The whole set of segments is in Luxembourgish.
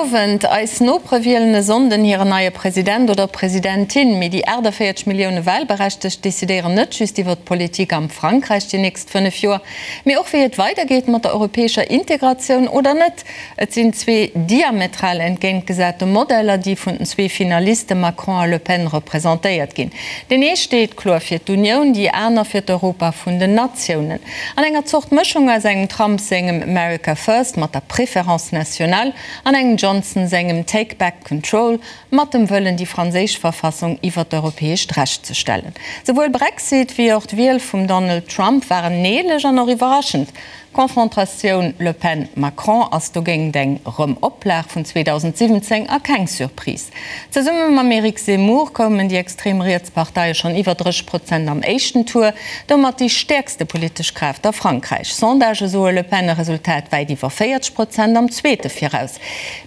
Owend. Eis Nopere wielen e Sonnden hiren neie President oder Presidentin. Mee déi 48 Millioune Wahlberechtegt decidéieren net just iwwer d'Politik am Frankräich déi nächst 5 Joer, mee och wéi et weidergeet mat der europäescher Integratioun oder net. Et sinn zwee diametral entgéintgesate Modeller, déi vun den zwee Finaliste Macron a Le Pen representéiert ginn. Deen ee steet kloer fir d'Unioun, déi aner fir d'Europa vun den Natiounen. An enger Zort Mëschung aus engem Trump sengem America First mat der Préférence nationale an engem Johnson sengem Take back control mat dem Wëllen déi franséisch Verfassung iwwer d'europäescht Recht ze stellen. Souwuel Brexit wéi och d'Wiel vum Donald Trump waren neelech an och iwwerraschend. D'Confrontatioun Le Pen-Macron ass dogéint eng Rëm-Oplag vun 2017 a keng Surprise. Zesumme mam Eric Zemmour koumen déi extrem riets Parteie schonn iwwer 30 Prozent am éischten Tour, domat déi stäerkste politesch Kraaft a Frankräich. Sondagë soe Le Pen e Resultat wäit iwwer 40 Prozent am zweete viraus.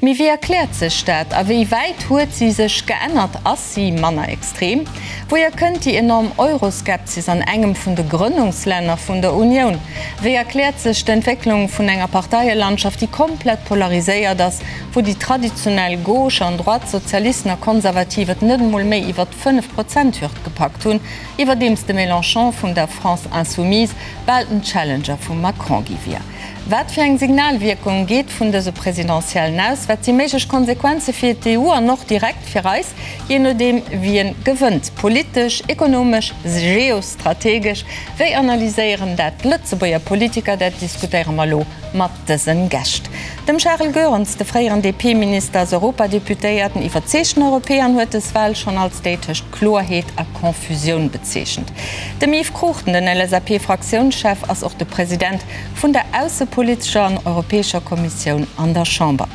Mee wéi erkläert sech dat a wéi wäit huet si sech geännert? Ass si manner extrem? Wouhier kënnt déi enorm Euroskepsis an engem vun de Grënnungslänner vun der Unioun? Wéi erkläert sech d'Entwécklung vun enger Parteielandschaft, déi komplett polariséiert ass, wou déi traditionell Gauche an Droite, Sozialisten a Konservativ et net emol méi iwwer d'Fënnef-Prozent-Hürd gepackt hunn, iwwerdeems de Mélenchon vun der France Insoumise bal den Challenger vum Macron gi wier? Wat fir eng Signalwierkung geet vun dëse Presidentiellen aus? Wat si méiglech Konsequenze fir d'EU an och direkt fir eis, jee nodeem wien gewënnt? Politesch, ekonomesch, geostrategesch? Wéi analyséieren dat d'Lëtzebuerger Politiker? Dat diskutéiere mer elo mat dësen Gäscht. Dem Charel Goerens, de fréieren DP-Minister, ass Europadeputéierten, iwwerzeegten Europäer an huet dës Wal schonn als déi tëscht Kloerheet a Confusioun bezeechent. Dem Yves Cruchten, den LSAP-Fraktiounschef, ass och de President vun der aussepolitescher an europäescher Kommissioun an der Chamber.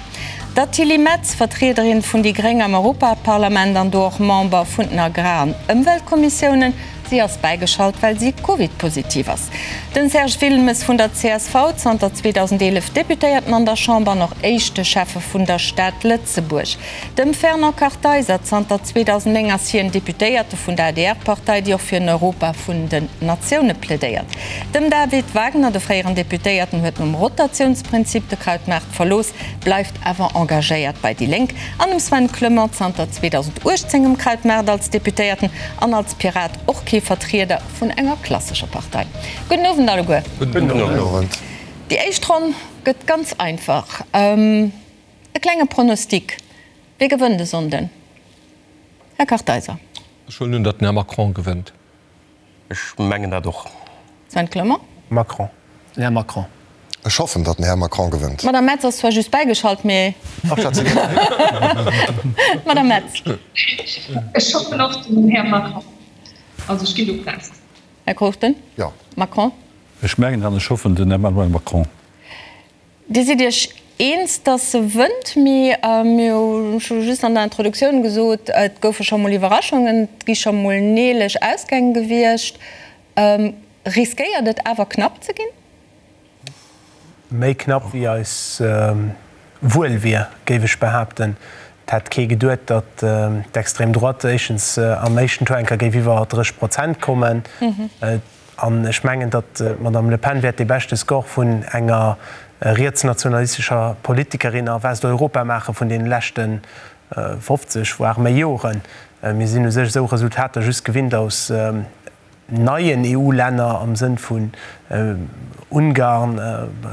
Der Tilly Metz, Vertriederin vun déi Gréng am Europaparlament an do och Member vun den Agrar an Ëmweltkommissiounen. Si ass bäigeschalt, well si Covid-positiv ass. Den Serge Wilmes vun der csv, zanter 2011 Deputéierten an der Chamber an och éischte Schäffe vun der Stad Lëtzebuerg. Dem Fernand Kartheiser, zanter 2009 ass hien Deputéierte vun der ADR-Partei, déi och fir en Europa vun den Natioune plädéiert. Dem David Wagner, de fréieren Deputéierten, huet nom Rotatiounsprinzip de Krautmaart verlooss, bleift awer engagéiert bei déi Lénk. An dem Sven Clement, zanter 2018 um Krautmaart als Deputéierten an als Pirat och kee Vertrieder vun enger klassescher Partei. Gudden Owend alleguer. Gudden Owend. Déi éischt Ronn gëtt ganz einfach. E klenge Pronostic, Wie gewënnt e Sonnden? Här Kartheiser. Ech huelen un, datt den Här Macron gewënnt. Ech mengen dat och. Sven Clement. Macron. Den Här Macron. Ech hoffen, datt den Här Macron gewënnt. D'Madame Metz ass zwar just bäigeschalt, mee. Madame Metz. Ech hoffen och den Här Macron. Also ech ginn do fest. Här Cruchten. Jo. Macron. Ech mengen an ech hoffen den Emmanuel Macron. Dir sidd Iech eens, datt se wënnt, mee mir hu scho just an der Introduktioun gesot, et goufe scho mol Iwwerraschungen, et gi scho mol neelech Ausgäng gewiescht. Riskéiert et awer knapp ze ginn? Méi knapp wéi eis wuel wier, géif ech behaapten. Et hätt kee geduet, datt d'Extrême droite éischtens am éischten Tour eng Kéier géif iwwer 30 Prozent kommen. An ech mengen, datt d'Madame Le Pen wäert dee beschte Score vun enger rietsnationalistescher Politikerin a Westeuropa maache vun deene leschte 50, voire méi Joren. Mir sinn u sech esou Resultater just gewinnt aus neien EU-Länner am Sënn vun Ungarn,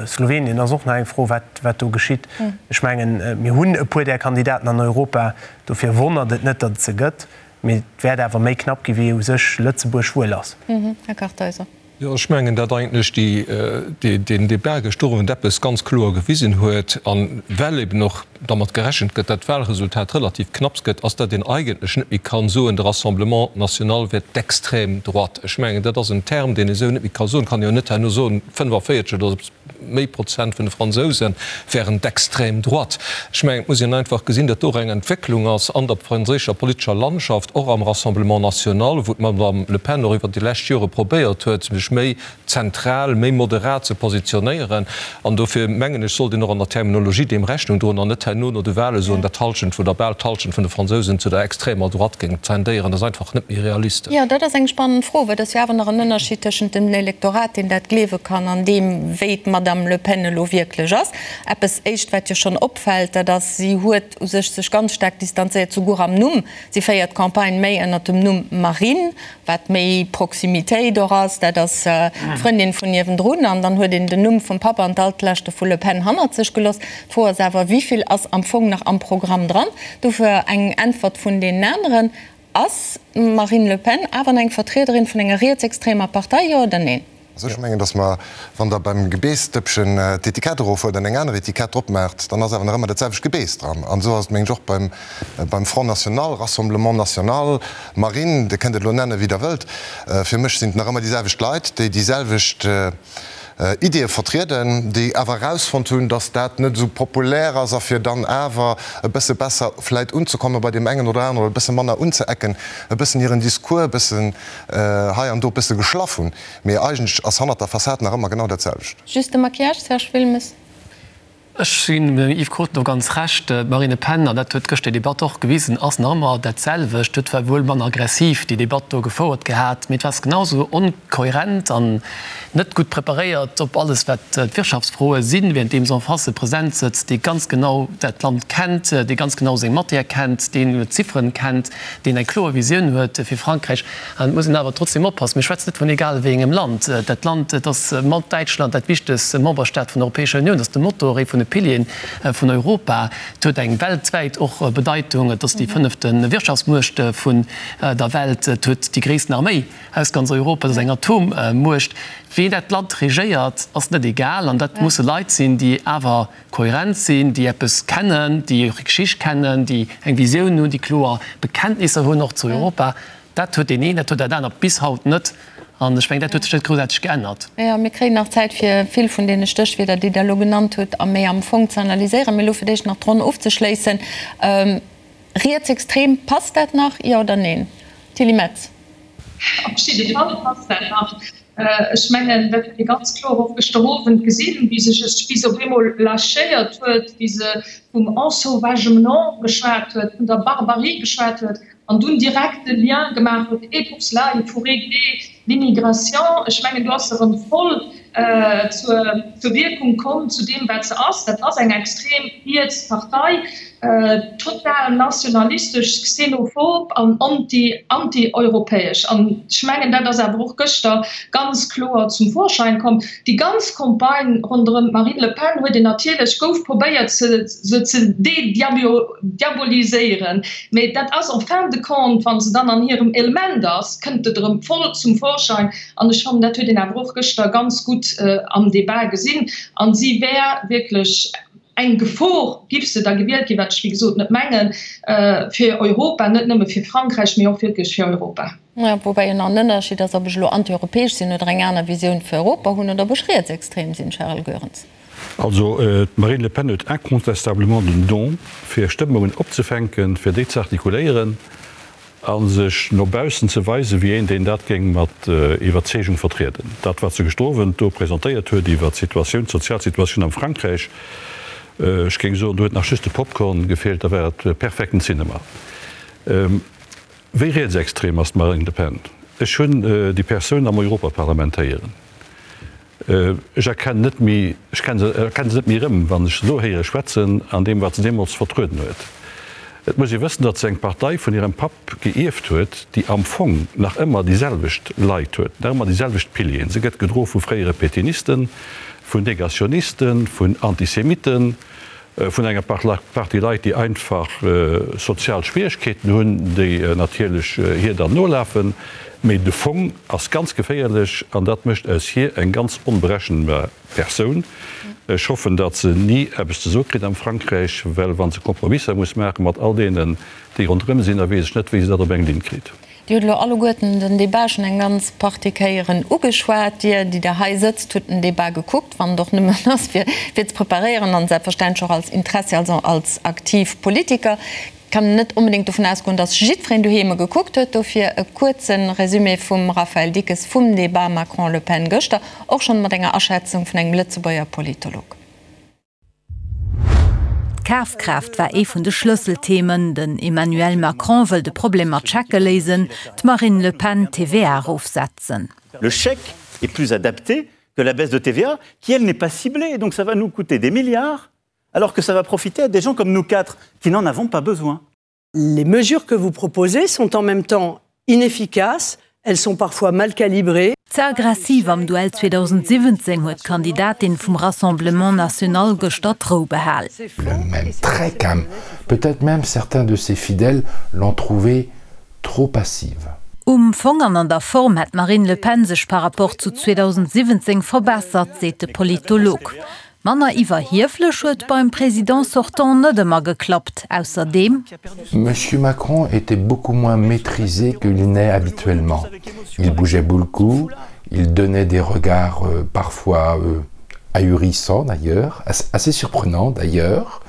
Slowenien ass och nach eng Fro, wat do geschitt. Ech mengen, mir hunn e puer där Kandidaten an Europa, dofir wonnert et net, datt et se gëtt. Mee et wäert awer méi knapp gi wéi u sech Lëtzebuerg wuel ass. Här Kartheiser. Jo, ech mengen, datt eigentlech deen Débat gëschter Owend eppes ganz kloer gewisen huet, a well eben och dermat gerechent gëtt, datt d'Wahlresultat relativ knapps gëtt, ass, datt een eigentlech net méi ka soen, de Rassemblement national wär d'extrême droite. Ech mengen, dat ass en Term, deen ee sou net méi ka soen. Et kann een jo net herno soen, 45 oder méi Prozent vun de Fransouse wären d'extrême droite. Ech mengen, et muss een einfach gesinn, datt do och eng Entwécklung ass an der franséischer politescher Landschaft, och am Rassemblement national, wou d'Madame Le Pen och iwwert déi lescht Jore probéiert huet, sech méi zentral, méi moderat ze positionéieren. An dofir mengen ech, sollt een och an der Terminologie deem Rechnung droen an net hei. herno no de Wahle soen, datt d'Hallschent oder bal d'Hallschent vun de Fransousen zu der extremer Droite géing tendéieren. Dat ass einfach net méi realistesch. Jo, dat ass eng spannend Fro, well et ass jo awer nach en Ënnerschied tëschent dem Elektorat, deen dat gleewe kann, an deem, wéi d'Madame Le Pen elo wierklech ass. Eppes éischt, wat jo schonn opfält, dat ass, si huet u sech sech ganz staark distanzéiert, souguer am Numm. Si féiert d'Campagne méi ënnert dem Numm Marine, wat méi Proximitéit och ass, dat ass d'Frëndin vun niewendrun, an dann huet een den Numm vum Papp an d'Altlaschte vu Le Pen hannert sech gelooss. D'Fro ass awer, Wéi vill ass am Fong nach am Programm dran? Dofir eng Äntwert vun deenen aneren. Ass d'Marine Le Pen awer eng Vertriederin vun enger rietsextremer Partei, jo oder neen? Also ech mengen, datt mer, wann Der beim Gebeessdëppchen d'Etikett erofhuelt an eng aner Etikett drop maacht, dann ass awer nach ëmmer dat selwecht Gebeess dran. An esou ass et, mengen ech, och beim, beim Front National, Rassemblement National, Marine, Dir kënnt et elo nennen, wéi Der wëllt. Fir mech sinn et nach ëmmer déi selwecht Leit, déi déi selwecht Ideeë vertrieden, déi awer erausfonnt hunn, datt dat net esou populär ass a fir dann awer e bësse besser vläit unzekomme bei deem engen oder aneren oder e bësse manner unzeecken, e bëssen hiren Discours e bëssen hei an do e bësse geschlaff hunn. Mee eigentlech ass hannert der Fassad nach ëmmer genau dat selwecht. Just de Maquillage, Serge Wilmes? Ech ginn dem Yves Cruchten do ganz Recht. D'Marine Le Pen, an dat huet gëschter déi Debatt och gewisen, ass nach ëmmer dat selwecht. Huet zwar wuel manner aggressiv déi Debatt do gefouert gehat, mee et war genau esou onkohärent an net gutt preparéiert op alles wat d'Wirtschaftsfroe sinn, währenddeem se en face e President sëtzt, dee ganz genau dat Land kennt, dee ganz genau seng Matière kennt, deen d'Zifferen kennt, deen eng kloer Visioun huet fir Frankräich. An et muss een awer trotzdem oppassen, mir schwätzen net vun egal wéi engem Land. Dat Land, et ass mat Däitschland dat wichtegst Memberstaat vun der Europäescher Unioun, et ass de Motor, ee vun de Pilieren vun Europa. Et huet eng weltwäit och Bedeitung, et ass déi fënnefte Wirtschaftsmuecht vun der Welt, et huet déi gréissten Arméi aus ganz Europa, et ass eng Atommuecht. Ween dat Land regéiert, ass net egal. An dat musse Leit sinn, déi awer kohärent sinn, déi eppes kennen, déi hir Geschicht kennen, déi eng Visioun hunn, déi kloer Bekenntnisser hunn och zu Europa. Dat huet deen een, dat huet dat anert bis haut net. An ech mengen, dat huet sech net groussaarteg geännert. Jo, mir kréien nach Zäit, fir vill vun deene Stéchwierder, déi Der elo genannt hutt, a méi am Fong ze analyséieren. Mee elo fir d'éischt nach d'Ronn ofzeschléissen. Rietsextrem, passt dat nach, jo oder neen? Tilly Metz. Op jidde Fall passt dat nach. Ech mengen, dat huet ee ganz kloer och gëschter Owend gesinn, wéi sech e bis op eemol lâchéiert huet, wéi se vum Ensauvagement geschwat huet, vun der Barbarie geschwat huet an dunn direkt de Lien gemaach huet, et pour cela, il faut régler l'immigration. Ech mengen, do ass se erëm voll zur Wierkung komm, zu deem, wat se ass. Dat ass eng extrem riets Partei, total nationalistesch, xenophob an anti, anti-europäesch. An ech mengen, dat ass awer och gëschter ganz kloer zum Vorschein komm. Déi ganz Campagne ronderëm d'Marine Le Pen huet een natierlech, gouf probéiert, se ze de-diaboliséieren. Mee dat ass en fin de compte, wa se dann an hirem Element ass, kënnt et erëm voll zum Vorschein. An ech fannen, dat huet een awer och gëschter ganz gutt am Debat gesinn. A si wär wierklech eng Gefor, giff se da gewielt ginn, wat ech wéi gesot net mengen, fir Europa, net nëmme fir Frankräich, mee och wierklech fir Europa. Jo, woubäi jo nach en Ënnerscheed ass, ob ech elo antieuropäesch sinn oder eng aner Visioun fir Europa hunn oder ob ech rietsextrem sinn, Charel Goerens. Also d'Marine Le Pen huet incontestablement den Don, fir Stëmmungen opzefänken, fir déi ze artikuléieren a sech no baussen ze weisen, wéi een, deen dat géing mat Iwwerzeegung vertrieden. Dat, wat se gëschter Owend do presentéiert huet iwwert d'Situatioun, d'sozial Situatioun am Frankräich, ech géing soen, do huet nach just de Popcorn gefeelt, da war et perfekten Cinema. Wéi rietsextrem ass d'Marine Le Pen? Ech hunn déi Persoun am Europaparlament héieren. Ech erkennen net méi, ech erkenne se net méi erëm, wann ech se elo héiere schwätzen, an deem, wat se deemools vertrueden huet. Et muss ee wëssen, datt se eng Partei vun hirem Papp geierft huet, déi am Fong nach ëmmer déi selwecht Leit huet, nach ëmmer déi selwecht Pilieren. Se gëtt gedro vu fréiere Pétainisten, vun Negationisten, vun Antisemitten, vun enger Partie Leit, déi einfach sozial Schwieregkeeten hunn, déi natierlech hir dann nolafen. Mee de Fong ass ganz geféierlech an dat mécht aus hir eng ganz onberechenbar Persoun. Ech hoffen, datt se ni eppes ze soe kritt am Frankräich, well wa se Kompromisser muss maache mat all deenen, déi ronderëm sinn, da weess ech net, wéi se dat op eng Linn kritt. Dir hutt elo alleguerten den Débat schonn eng ganz Partie Kéieren ugeschwat. Dir, déi Der hei sëtzt, hutt den Débat gekuckt, wann et och nëmmen ass, fir fir ze preparéieren an selbstverständlech och als Interessi, also als aktiv Politiker. Et kann een net onbedéngt dovun ausgoen, dass jiddwereen doheem e gekuckt huet. Dofir e kuerze Résumé vum Raphaël Dickes vum Débat Macron-Le Pen gëschter, och schonn mat enger Aschätzung vun engem Lëtzebuerger Politolog. D'Kafkraaft war ee vun de Schlësselthemen. Den Emmanuel Macron wëll de Problem mat Schecke léisen, d'Marine Le Pen d'TVA erofsetzen. Le chèque est plus adapté que la baisse de TVA qui, elle, n'est pas ciblée. Donc ça va nous coûter des milliards alors que ça va profiter à des gens comme nous quatre qui n'en avons pas besoin. Les mesures que vous proposez sont en même temps inefficaces, elles sont parfois mal calibrées. Ze aggressiv am Duell 2017 huet d'Kandidatin vum Rassemblement National gëschter d'Rou behal. Le même très calme, peut-être même certains de ses fidèles l'ont trouvée trop passive. Um Fong an an der Form hätt d'Marine Le Pen sech par rapport zu 2017 verbessert, seet de Politolog. Manner iwwerhieflech huet beim Président sortant net ëmmer geklappt. Ausserdeem. Monsieur Macron était beaucoup moins maîtrisé qu'il n'est habituellement. Il bougeait beaucoup, il donnait des regards euh, parfois euh, ahurissants d'ailleurs, assez surprenants d'ailleurs.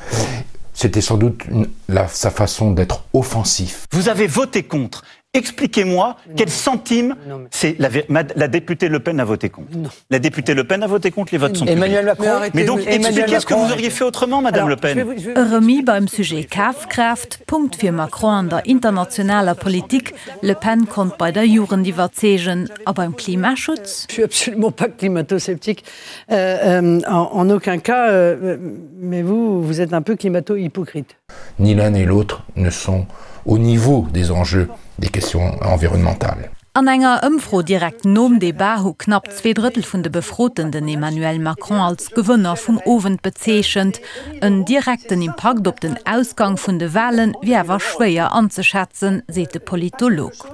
C'était sans doute une, la, sa façon d'être offensif. Vous avez voté contre Expliquez-moi quel centime c'est la, la députée Le Pen a voté contre. Non. La députée Le Pen a voté contre, les votes sont Emmanuel Macron. Mais donc expliquez ce que vous auriez fait autrement, Madame Alors, Le Pen. E Remis beim Sujet Kafkraaft, Punkt fir Macron an der internationaler Politik, Le Pen konnt bei der Jugend iwwerzeegen. A beim Klimaschutz? Je suis absolument pas climato-sceptique, euh, euh, en, en aucun cas, euh, mais vous, vous êtes un peu climato-hypocrite. Ni l'un ni l'autre ne sont au niveau des enjeux des questions environnementales. An enger Ëmfro direkt nom Debat hu knapp zweedrëttel vun de Befroten den Emmanuel Macron als Gewënner vum Owend bezeechent. En direkten Impakt op den Ausgang vun de Wale wier awer schwéier anzeschätzen, seet de Politolog.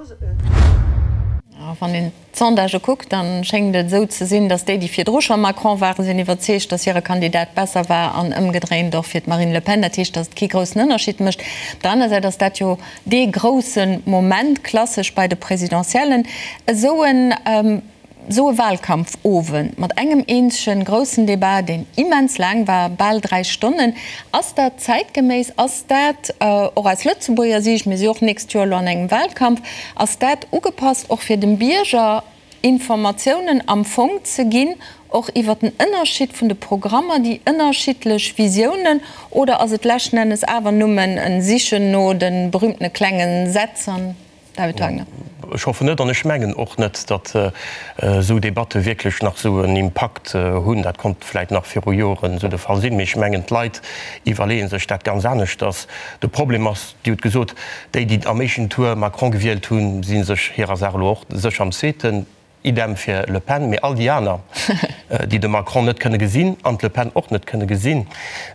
Wann een d'Sondagë kuckt, da schéngt et esou ze sinn, datt déi, déi virdru scho Macron waren, sinn iwwerzeegt, datt hire Kandidat besser war an ëmgedréint och fir d'Marine Le Pen. Dat heescht, datt et kee groussen Ënnerscheed mécht. Op der aner Säit ass dat jo dee grousse Moment, klassesch bei de Presidentiellen, esou en esou e Wahlkampfowend mat engem eenzege groussen Debat, deen immens laang war, bal 3 Stonnen. Ass dat zäitgeméiss? Ass dat och aus Lëtzebuerger Siicht, mir si och d'nächst Joer elo an engem Wahlkampf, ass dat ugepasst och fir dem Bierger Informatiounen am Fong ze ginn, och iwwer den Ënnerschied vun de Programmer, déi ënnerschiddlech Visiounen, oder ass et leschten Ennes awer nëmmen e Sichen no de berühmtene klenge Sätz an David Wagner. Ech hoffen net an ech mengen och net, datt esou Debatte wierklech nach esou en Impakt hunn. Dat konnt vläit nach viru Joren esou de Fall sinn, mee ech mengen, d'Leit iwwerleeë sech dat ganz aneschters. De Problem ass, Dir hutt gesot, déi, déi am éischten Tour Macron gewielt hunn, si sech hirer Saach elo och sécher am zweeten. Idem fir Le Pen, mee all déi aner, déi de Macron net kënne gesinn an d'Le Pen och net kënne gesinn,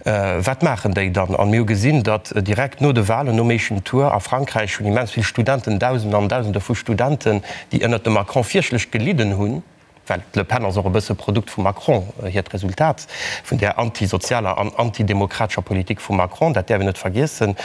wat maachen déi dann? An mir hu gesinn, datt direkt no de Wahlen, nom éischten Tour a Frankräich, hunn immens vill Studenten, Dausende an Dausende vu Studenten, déi ënnert dem Macron fierchtlech gelidden hunn, well d'Le Pen ass och e bësse Produkt vum Macron, hiert Resultat vun där antisozialer an antidemokratescher Politik vum Macron, dat däerf een net vergiessen,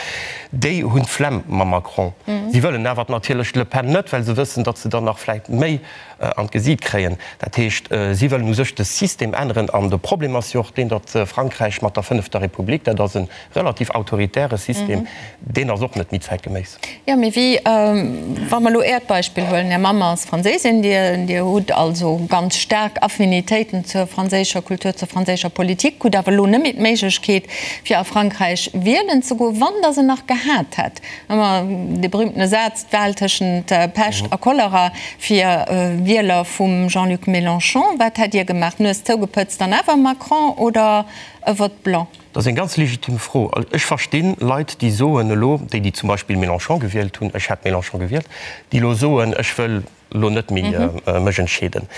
déi hunn d'Flemm mam Macron. Si wëllen awer natierlech d'Le Pen net, well se wëssen, datt se dann nach vläicht méi an d'Gesiit kréien. Dat heescht, si wëllen u sech de System änneren. An de Problem ass jo och deen, datt Frankräich mat der fënnefter Republik, dat ass e relativ autoritäre System, deen ass och net méi zäitgeméiss. Jo, mee wéi, wa mer elo Äert Beispill huelen, Är Mamm ass Franséisin, Dir, Dir hutt also ganz staark Affinitéiten zur franséischer Kultur, zur franséischer Politik, hutt awer elo net méi d'Méiglechkeet, fir a Frankräich wielen ze goen. Wann Der se nach gehat hätt, ëmmer dee berühmtene Saz, d'Wahl tëschent Pescht a Cholera fir Wieler vum Jean-Luc Mélenchon, wat hätt Dir gemaach? D'Nues zougepëtzt an awer Macron oder e Vote blanc? Dat ass eng ganz legitim Fro. Ech verstinn Leit, déi soen elo, déi, déi zum Beispill Mélenchon gewielt hunn, ech hätt Mélenchon gewielt, déi elo soen, ech wëll elo net méi mech entscheeden.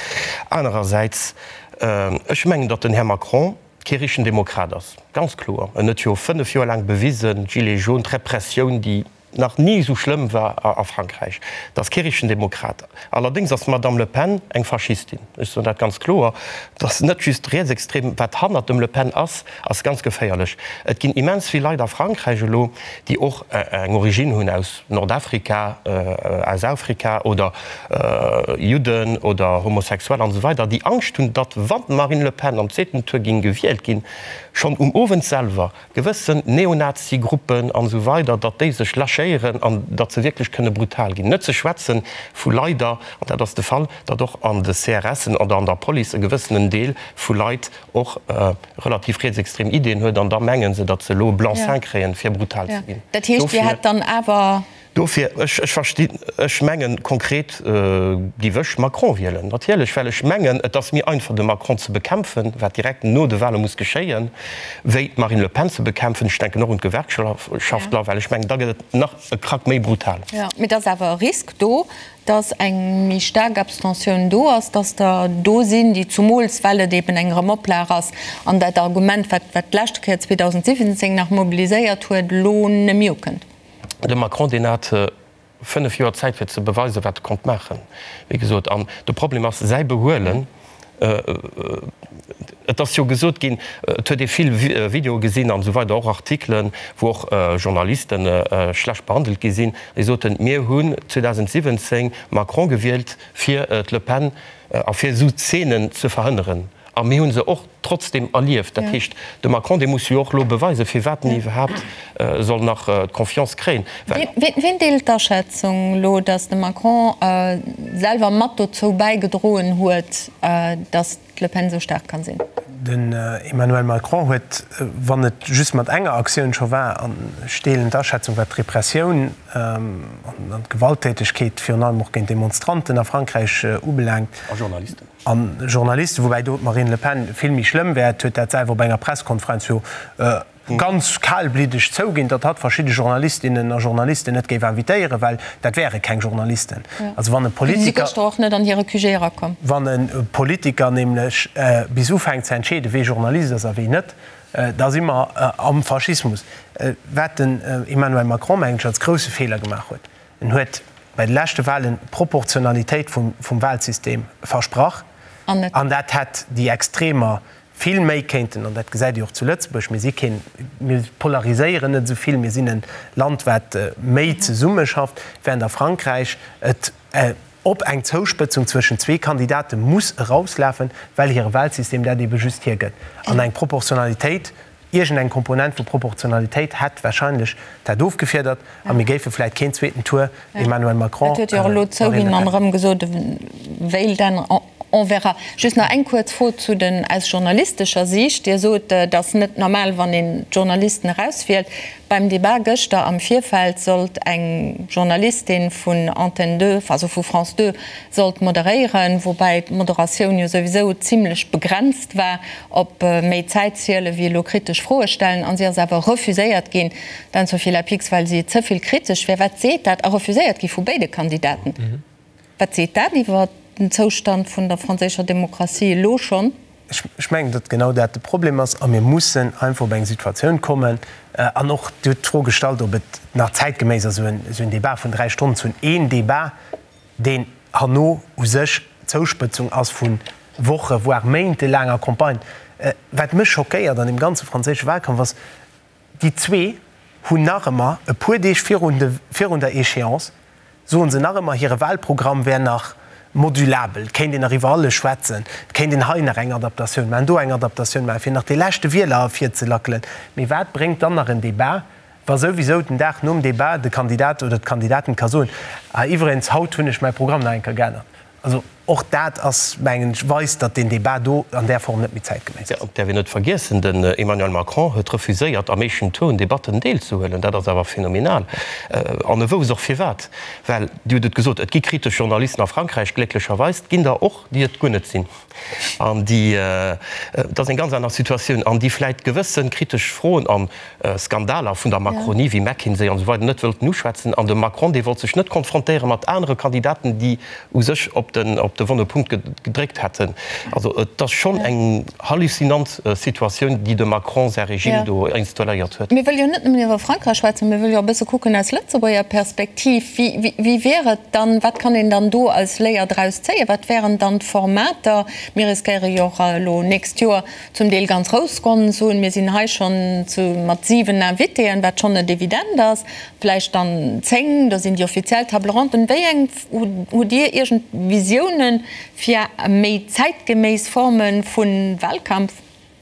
Anerersäits, ech mengen, datt den Här Macron kee richtegen Demokrat ass, ganz kloer. En huet jo 5 Joer laang bewisen, d'Gilets jaunes, d'Repressioun, déi nach ni esou schlëmm war a Frankräich, dat ass kee richtegen Demokrat. Allerdéngs ass d'Madame Le Pen eng Faschistin. Ech soen dat ganz kloer. Et ass net just rietsextrem. Wat hannert dem Le Pen ass, ass ganz geféierlech. Et ginn immens vill Leit a Frankräich elo, déi och eng Origine hunn aus Nordafrika, aus Afrika oder Judden oder Homosexuell an esou weider, déi Angscht hunn, datt wann d'Marine Le Pen am zweeten Tour géing gewielt ginn, schonn um Owend selwer gewëssen Neonazi-Gruppen an esou weider, datt déi sech lâchéieren. lâchéieren an datt se wierklech kënne brutal ginn. Net ze schwätze vu leider, an dat ass de Fall, datt och an de CRSen oder an der Police e gewëssenen Deel vu Leit och relativ rietsextrem Ideeën huet an da menge se, datt se elo e Blanc-seing kréien, fir brutal ze ginn. Dat heescht, Dir hätt dann awer. Dofir, ech, ech verstinn, ech mengen, konkret géif ech Macron wielen, natierlech, well ech mengen, et ass méi einfach de Macron ze bekämpfen, wat direkt no de Wahle muss geschéien, wéi d'Marine Le Pen ze bekämpfen. Ech denken och un d'Gewerkschaftler, well ech mengen, da gëtt et nach e Krack méi brutal. Jo, mee et ass awer e Risk do, dass eng méi staark Abstentioun do ass, dass der do sinn, déi, zumools well et eben eng Erëmoplag ass an dat Argument, wat wat d'leschte Kéier 2017 nach mobiliséiert huet, elo net méi ukënnt. De Macron, deen hat 5 Joer Zäit fir ze beweisen, wat e konnt maachen, wéi gesot. An de Problem ass säi Behuelen. Et ass jo gesot ginn, et huet ee vill Videoe gesinn an esou weider, och Artikelen, wou och Journaliste schlecht behandelt gi sinn, déi soten, mir hunn 2017 Macron gewielt fir d'Le Pen a fir esou Zeenen ze verhënneren. A mir hu se och trotzdem erlieft. Dat heescht, de Macron, dee muss jo och elo beweisen, firwat en iwwerhaapt soll nach d'Confiance kréien, well. Wien deelt d'Aschätzung elo, datt de Macron selwer mat dozou bäigedroen huet, datt d'Le Pen esou staark kann sinn? Den Emmanuel Macron huet, wann et just mat enger Aktioun scho war, an ech deelen d'Aschätzung, wat d'Repressioun an d'Gewalttätegkeet virun allem och géint Demonstranten a Frankräich ubelaangt, A Journalisten. A Journalisten, woubäi do d'Marine Le Pen vill méi schlëmm wär, huet dat selwer op enger Presskonferenz jo ganz kalbliddeg zouginn, datt hatt verschidde Journalistinnen a Journalisten net géif invitéieren, well dat wäre keng Journalisten. Also wann e Politiker. Si gëschter och net an hire QG erakomm. Wann e Politiker nämlech bis ufänkt ze entscheeden, wee Journalist ass a wee net, da si mer am Faschismus. Wat den Emmanuel Macron, mengen ech, als grousse Feeler gemaach huet, En huet bei de leschte Wahlen d'Proportionalitéit vum Wahlsystem versprach an dat hätt déi Extremer vill méi kéinten, an dat gesäit Dir och zu Lëtzebuerg, mir si keen, mir polariséieren net esou vill, mir sinn e Land wat méi zesummeschafft, während a Frankräich et op eng Zouspëtzung zwëschen zwee Kandidate muss erauslafen, well hire Wahlsystem dat ebe just hiergëtt an eng Proportionalitéit Iergend eng Komponent vu Proportionalitéit hätt wahrscheinlech dat ofgefiedert a mir géife vläit keen zweeten Tour Emmanuel Macron, Dat huet jo och elo Marine zouginn Le an Pen. erëm gesot, e wéilt änneren. On verra. Just nach eng kuerz Fro zu den, aus journalistescher Siicht. Dir sot, et ass net normal, wann een d'Journalisten erauswielt. Beim Debat gëschter am Virfeld sollt eng Journalistin vun Antenne 2, also vu France 2, sollt moderéieren, woubäi d'Moderatioun jo souwisou zimlech begrenzt war op méi Zäit ziele wéi elo kritesch Froe stellen. An si ass awer refuséiert ginn, d'Anne-Sophie Lapix, well si ze vill kritesch wär. Wat seet dat? A refuséiert gi vu béide Kandidaten. Wat seet dat iwwer den Zoustand vun der franséischer Demokratie elo schonn? Ech mengen, datt genau dat de Problem ass a mir mussen einfach op eng Situatioun kommen, an och, Dir hutt d'Fro gestallt, ob et nach zäitgeméiss ass, esou en Débat vun dräi Stonnen ze hunn, een Débat, deen herno u sech d'Zouspëtzung ass vu Woche voire méintelaanger Campagne. Wat mech schockéiert an deem ganze franséische Wahlkampf ass, déi zwee hunn nach ëmmer, e puer Deeg virun de virun der Échéance, soen se nach ëmmer, hire Wahlprogramm wär nach modulabel, et kéint een nach iwwer alles schwätzen, et kéint een hei nach eng Adaptatioun maachen, do eng Adaptatioun maachen, fir nach dee leschte Wieler ervirzelackelen. Mee wat bréngt dann nach en Débat, wa souwisou den Dag nom Débat de Kandidat oder d'Kandidatin ka soen, ah iwwregens, haut hunn ech mäi Programm nach eng Kéier geännert. Also och dat ass, mengen ech, weist, datt deen Débat do an där Form net méi zäitgeméiss ass. Et däerf een net vergiessen, den Emmanuel Macron huet refuséiert, am éischten Tour un Debatten deelzehuelen. Dat ass awer phänomenal. An e wousst och firwat. Well, Dir hutt et gesot, et gi kritesch Journalisten a Frankräich, glécklecherweis. Et ginn der och, déi et guer net sinn. An déi, et ass eng ganz aner Situatioun, an déi vläit gewësse kritesch Froen an Skandaler vun der Macronie wéi McKinsey an esou weider net wëllten uschwätzen. An de Macron, dee wollt sech net konfrontéiere mat anere Kandidaten, déi u sech op den op de wonne Punkt gedréckt hätten. Also et ass schonn eng hallucinant Situatioun, déi de Macron säi Regime do installéiert huet. Mir wëlle jo net nëmmen iwwer Frankräich schwätzen, mir wëlle jo och e bësse kucken aus Lëtzebuerger Perspektiv. Wéi wéi wier et dann, wat kann een dann do als Léier draus zéien? Wat wären dann d'Formater? Mir riskéiere jo och elo nächst Joer Zum Deel ganz grouss Ronn hunn. Mir sinn hei schonn zu mat 7 Invitéen, wat schonn net evident ass, vläicht dann 10, do sinn déi offiziell Table ronden. Wéi eng hutt Dir iergend Visiounen fir méi zäitgeméiss Forme vu Wahlkampf?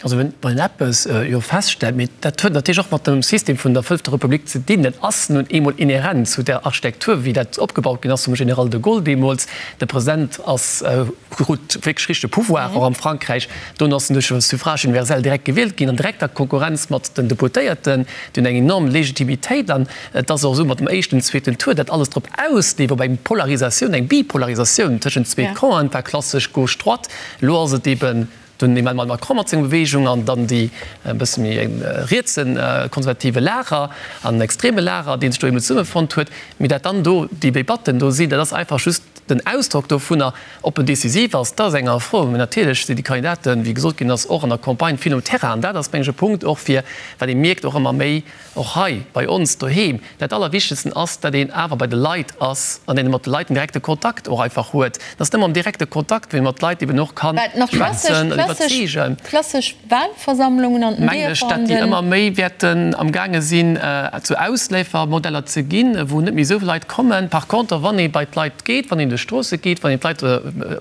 Also wann een eppes jo feststellt, mee dat huet natierlech och mat dem System vun der Fënnfter Republik ze dinn, dat ass nun eemol inhärent zu där Architektur, wéi dat opgebaut ginn ass vum General de Gaulle deemools, de President ass, krut wierklech richtege Pouvoir och am Frankräich, dono ass en duerch e Suffrage universel direkt gewielt ginn, an direkter Konkurrenz mat den Deputéierten, déi hunn eng enorm Legitimitéit an et ass och esou mat dem éischten, zweeten Tour, dat alles drop ausleeft op eng Polarisatioun, eng Bipolarisatioun tëschent zwee Campen, war klassesch Gauche-Droite, elo ass et eeben Den Emmanuel Macron mat senger Beweegung an dann déi e bësse méi rietse konservative Lager an extreme Lager, dee sech do eemol zesummefonnt huet. Mee dat dann do déi Debatten do sinn, dat ass einfach just den Ausdrock dovunner. Ob en decisiv ass, dat ass eng aner Fro. Mee natierlech sinn déi Kandidaten, wéi gesot ginn ass, och an der Campagne vill um Terrain. An dat ass, meng ech, e Punkt och fir, wat ee mierkt och ëmmer méi, Och hei bei ons doheem, dat Allerwichtegsten ass, datt een awer bei de Leit ass an een mat de Leit en direkte Kontakt och einfach huet. Et ass nëmme am direkte Kontakt, wou ee mat Leit eben och ka schwätzen an iwwerzeegen. Klassesch Wahlversammlungen an den Mengen ech, datt déi ëmmer méi wäerten am gaange sinn, zu Ausleefermodeller ze ginn, wou net méi esou vill Leit kommen. Par contre, wann ee bei d'Leit geet, wann een duerch d'Stroosse geet, wann een d'Leit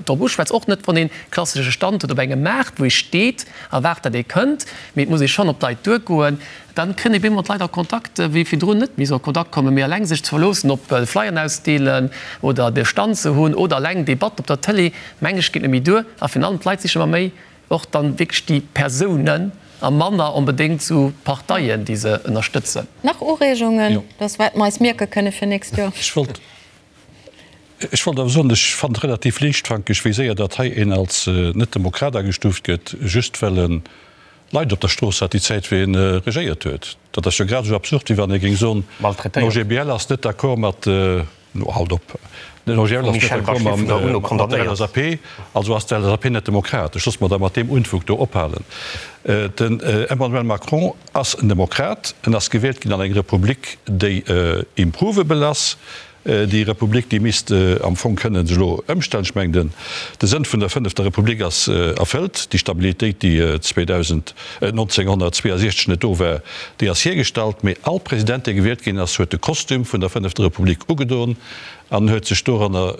drop uschwätzt, och net wann ee klassesche Stand huet op engem Maart, wou ee steet a waart, datt ee kënnt, mee et muss ee schonn op d'Leit duergoen, Dann kënnt ee bemol mat Leit a Kontakt, wéi virdrun net méi esou a Kontakt kommen. Mee eleng sech ze verloossen op Flyeren ausdeelen oder de Stand ze hunn oder eleng Debatt op der Tëlee, meng ech, geet net méi duer. A virun allem d'Leit sichen ëmmer méi och dann wierklech déi Persounen a manner onbedéngt esou d'Parteien, déi se ënnerstëtzen. Nach Ureegungen, dass wat mer eis mierke kënne fir nächst Joer? Ech wollt, ech wollt awer soen, ech fannen et relativ liichtfankeg, wéi séier datt hei een als Net-Demokrat agestuuft gëtt, just well en Leit op der Strooss hat déi Zäit wéi en regéiert huet. Dat ass jo grad esou absurd wéi wann ee géing soen, den OGBL ass net d'accord mat, no halt op, den OGBL ass net d'accord mat der LSAP, also ass d'LSAP net demokratesch. Loosse mer da mat deem Unfug do ophalen. Den Emmanuel Macron ass en Demokrat, en ass gewielt ginn an eng Republik déi improvable ass, Déi Republik, déi misst am Fong kënnen sech elo ëmstellen. Ech mengen, de Sënn vun der fënnefter Republik ass erfëllt. Déi Stabilitéit, déi 2000, 1962 net do war, déi ass hiergestallt. Mee all President, dee gewielt ginn ass, huet de Kostüm vun der fënnefter Republik ugedon an huet sech doranner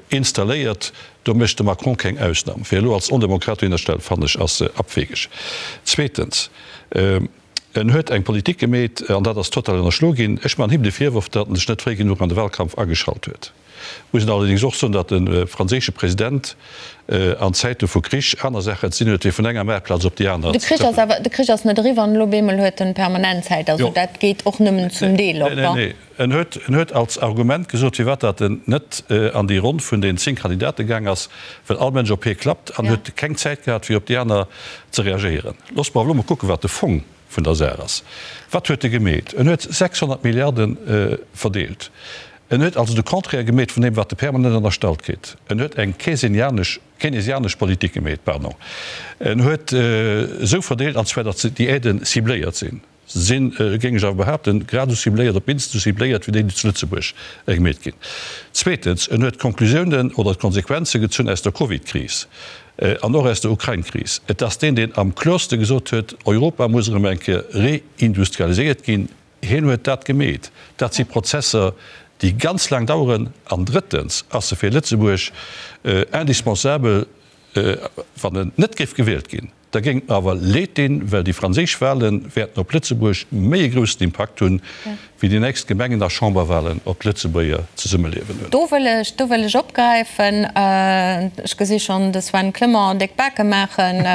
installéiert. Do mécht de Macron keng Ausnam. Fir elo als Ondemokrat dohinner stellen, fannen ech, ass abwegeg. Zweetens. En huet eng Politik gemeet, an dat ass total ënnerschlo ginn. Ech man him de Virworf, datt en sech net fréi genuch an de Wahlkampf ageschalt huet. Muss een allerdéngs och soen, datt de franséische President an Zäite vu Krich aner Saachen ze dinn huet, wéi vun enger Maartplaz op déi aner ze trëppelen. De Krich ass net eriwwer an elo op eemol huet en permanent Zäit. Also dat geet och nëmmen zum Deel op. Nee, nee. En huet, en huet als Argument gesot, firwat datt en net an déi Ronn vun den 10 Kandidate gaang ass, well all Mënsch op hie klappt an huet keng Zäit gehat, fir op déi aner ze reagéieren. Loosst mer awer elo mol kucken, wat de Fong vun der Saach ass. Wat huet e gemeet? En huet 600 Milliarde verdeelt. En huet also de Contraire gemeet vun deem, wat e permanent ënnerstallt kritt. En huet eng keynesianesch, keynesianesch Politik gemeet, pardon. En huet esou verdeelt, an zwar datt déi Aiden cibléiert sinn. Se sinn, géing ech awer behaapten, grad esou cibléiert, op d'minst esou cibléiert wéi déi, déi zu Lëtzebuerg gemeet ginn. Zweetens, en huet d'Konklusiounen oder d'Konsequenze gezunn aus der Covid-Kris an och aus der Ukrain-Kris. Et ass deen, deen am kloerste gesot huet, Europa muss erëm eng Kéier reindustrialiséiert ginn. Hien huet dat gemeet. Dat si Prozesser, déi ganz laang daueren. An drëttens ass e fir Lëtzebuerg indispensabel, wann en net géif gewielt ginn. Da géing et mer awer leed dinn, well déi franséisch Wahle wäerten op Lëtzebuerg méi e groussen Impakt hunn, wéi déi nächst Gemengen a Chamberwahlen op d'Lëtzebuerger Zesummeliewen hunn. Do wëll ech, do wëll ech opgräifen. Ech gesi schonn de Sven Clement déck Bake maachen.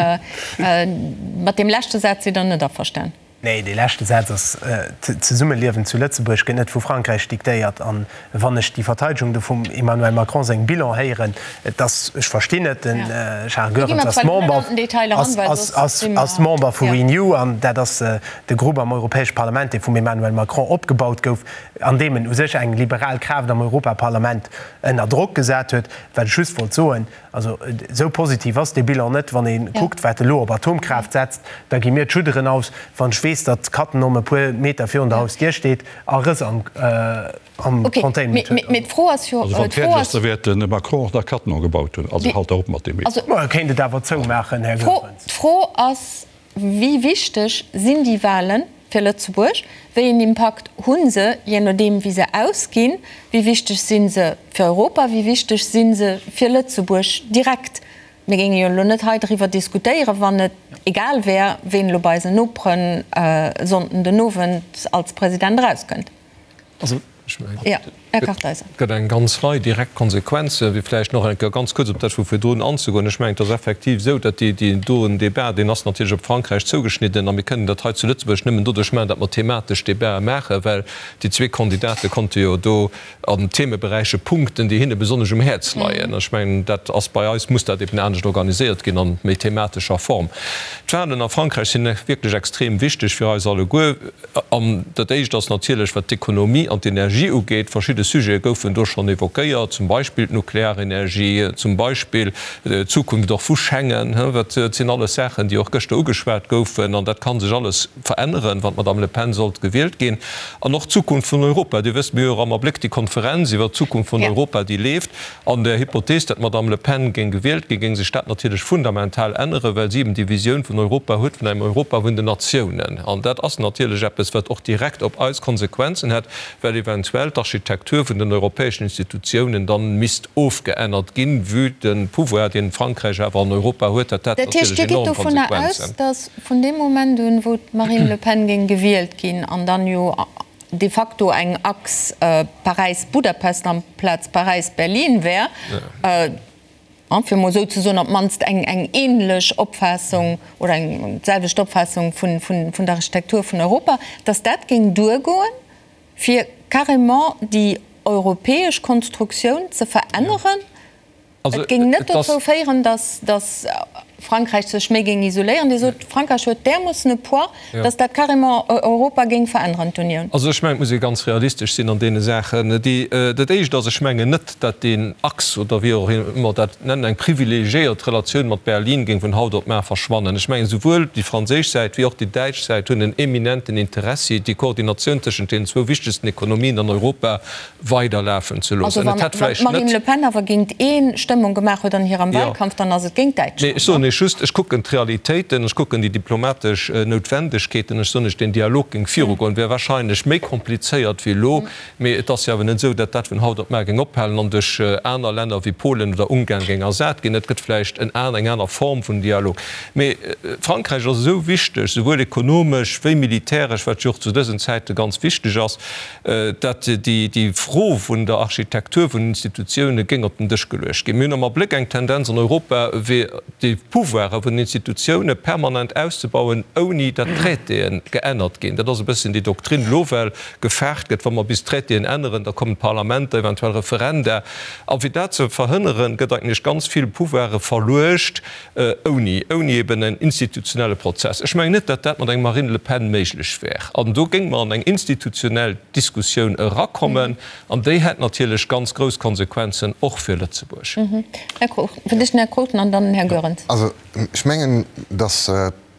Mat deem leschte Saz sidd Der net averstan? Nee, dee leschte Saz ass, D'Zesummeliewen zu Lëtzebuerg gëtt net vu Frankräich diktéiert. An wann ech déi Verteidegung do vum Emmanuel Macron sengem Bilan héieren, et ass, ech verstinn et, den Charles Goerens ass Member, ass Member vu Renew, an dat ass de Grupp am Europäesche Parlament, dee vum Emmanuel Macron opgebaut gouf, an deem en u sech eng liberal Kraaft am Europaparlament ënner Drock gesat huet. Wat ech just wollt soen, Also esou positiv ass dee Bilan net. Wann ee kuckt, wat elo op Atomkraaft setzt, da gi mir d'Schudderen aus. Wann ech weess, datt Cattenom e puer Meter virun der Hausdier steet a Rëss am Containment huet. Mee d'Fro ass jo. Also wann et fäerdeg ass, da wäert de Macron och nach Cattenom gebaut hunn. Also halt der op mat deem. Ma e kéint et awer zoumaachen, Här Goerens. D'Fro ass, Wéi wichteg sinn déi Wahlen fir Lëtzebuerg? Wéi een Impakt hu se, jee nodeem wéi se ausginn? Wéi wichteg si se fir Europa? Wéi wichteg si se fir Lëtzebuerg direkt? Mir géinge jo elo net hei driwwer diskutéieren, wann et. et egal wär, ween elo bei eisen Noperen e Sonnden den Owend als President erauskënnt? Also, ech mengen, et gëtt eng ganz Rei direkt Konsequenzen. Fir vläicht nach eng Kéier ganz kuerz op dat vu virdrun anzegoen, Ech mengen, et ass effektiv esou, datt déi, deen doen Débat, deen ass natierlech op Frankräich zougeschnidden a mir kënnen dat hei zu Lëtzebuerg nëmmen doduerch maachen, datt mer thematesch Débatë maachen, well déi zwee Kandidate konnte jo do an Themeberäiche punkten, déi hinne besonnesch um Häerz leien. Ech mengen, dat ass bei eis, muss dat eben anescht organiséiert ginn, an méi thematescher Form. D'Wahlen a Frankräich sinn wierklech extrem wichteg fir eis alleguer. An dat Éischt ass natierlech, wat d'Ekonomie an d'Energie ugeet. Verschidde Sujete goufen do schonn évoquéiert, zum Beispill d'Nuklearenergie, zum Beispill d'Zukunft och vu Schengen. Dat sinn alles Saachen, déi och gëschter ugeschwat goufen. An dat ka sech alles veränneren, wann d'Madame Le Pen sollt gewielt ginn. An och d'Zukunft vun Europa. Dir wësst, mir hu jo och am Abléck déi Konferenz iwwert d'Zukunft vun Europa, déi leeft. An der Hypothees, datt d'Madame Le Pen géing gewielt ginn, géing sech dat natierlech fundamental änneren, well si eben déi Visioun vun Europa huet, vun engem Europa vun den Natiounen. An dat ass natierlech eppes, wat och direkt op eis Konsequenzen hätt, well eventuell d'Architektur vun den europäeschen Institutiounen dann misst ofgeännert ginn, vue de Pouvoir, deen Frankräich awer an Europa huet, hätt dat Dat heescht, natierlech Dir gitt enorm dovunner aus, Konsequenzen. datt vun deem Moment un, wou d'Marine Le Pen géing gewielt ginn an dann jo de facto eng Achs Paräis-Budapest amplaz Paräis-Berlin wär, fir emol esou ze soen, op d'mannst eng eng ähnlech Opfaassung oder eng d'selwecht Opfaassung vun vun der Architektur vun Europa, datt dat géing duergoen, fir carrément déi europäesch Konstruktioun ze veränneren? Et géing net dozou féieren, datt Frankräich sech méi géing isoléieren. Dir sot, Frankräich huet därmoossen e Poids, datt dat carrément Europa géing veränneren, d'Unioun. Also ech mengen, et muss ee ganz realistesch sinn an deene Saachen. Dat Éischt ass, ech mengen net, datt deen Achs, oder wéi och ëmmer dat nennen, eng privilegiéiert Relatioun mat Berlin géing vun haut op mar verschwannen. Ech mengen, souwuel déi franséisch Säit wéi och déi däitsch Säit hunn en eminenten Interessi, déi Koordinatioun tëschent deenen zwou wichtegsten Ekonomien an Europa weiderlafen ze loossen. Also wann d'Marine Le Pen awer géint ee Stëmmung gemaach huet an hirem Wahlkampf, dann ass et géint Däitschland. Nee, ech soen Iech just, ech kucken d'Realitéiten, ech kucken déi diplomatesch Noutwendegkeeten, ech soen Iech, deen Dialog géing virugoen, wär wahrscheinlech méi komplizéiert wéi elo, mee et ass jo awer net esou, datt dat vun haut op mar géing ophalen an duerch aner Länner wéi Polen oder Ungarn géing ersat ginn. Et gëtt vläicht en eng aner Form vun Dialog. Mee Frankräich ass esou wichteg, souwuel ekonomesch wéi militäresch, wat jo och zu dësen Zäite ganz wichteg ass, datt déi Fro vun der Architektur vun den Institutioune géing op den Dësch geluecht ginn. Mir hunn am Abléck eng Tendenz an Europa, fir déi Pouvoire vun den Institutioune permanent auszebauen, ouni datt d'Traitéen geännert ginn. Dat ass e bësschen déi Doktrin elo, well gefaart gëtt, wa mer bis d'Traitéen änneren, da kommen d'Parlamenter, eventuell Referenda. A fir dat ze verhënneren, gëtt eigentlech ganz vill Pouvoire verluecht Ouni, ouni eben en institutionelle Prozess. Ech mengen net, datt dat mat engem Marine Le Pen méiglech wär. An do géinge mer an eng institutionell Diskussioun erakommen, an déi hätt natierlech ganz grouss Konsequenzen och fir Lëtzebuerg. Här Cruchten, fir d'éischt den Här Cruchten an dann den Här Goerens. Also ech mengen, datt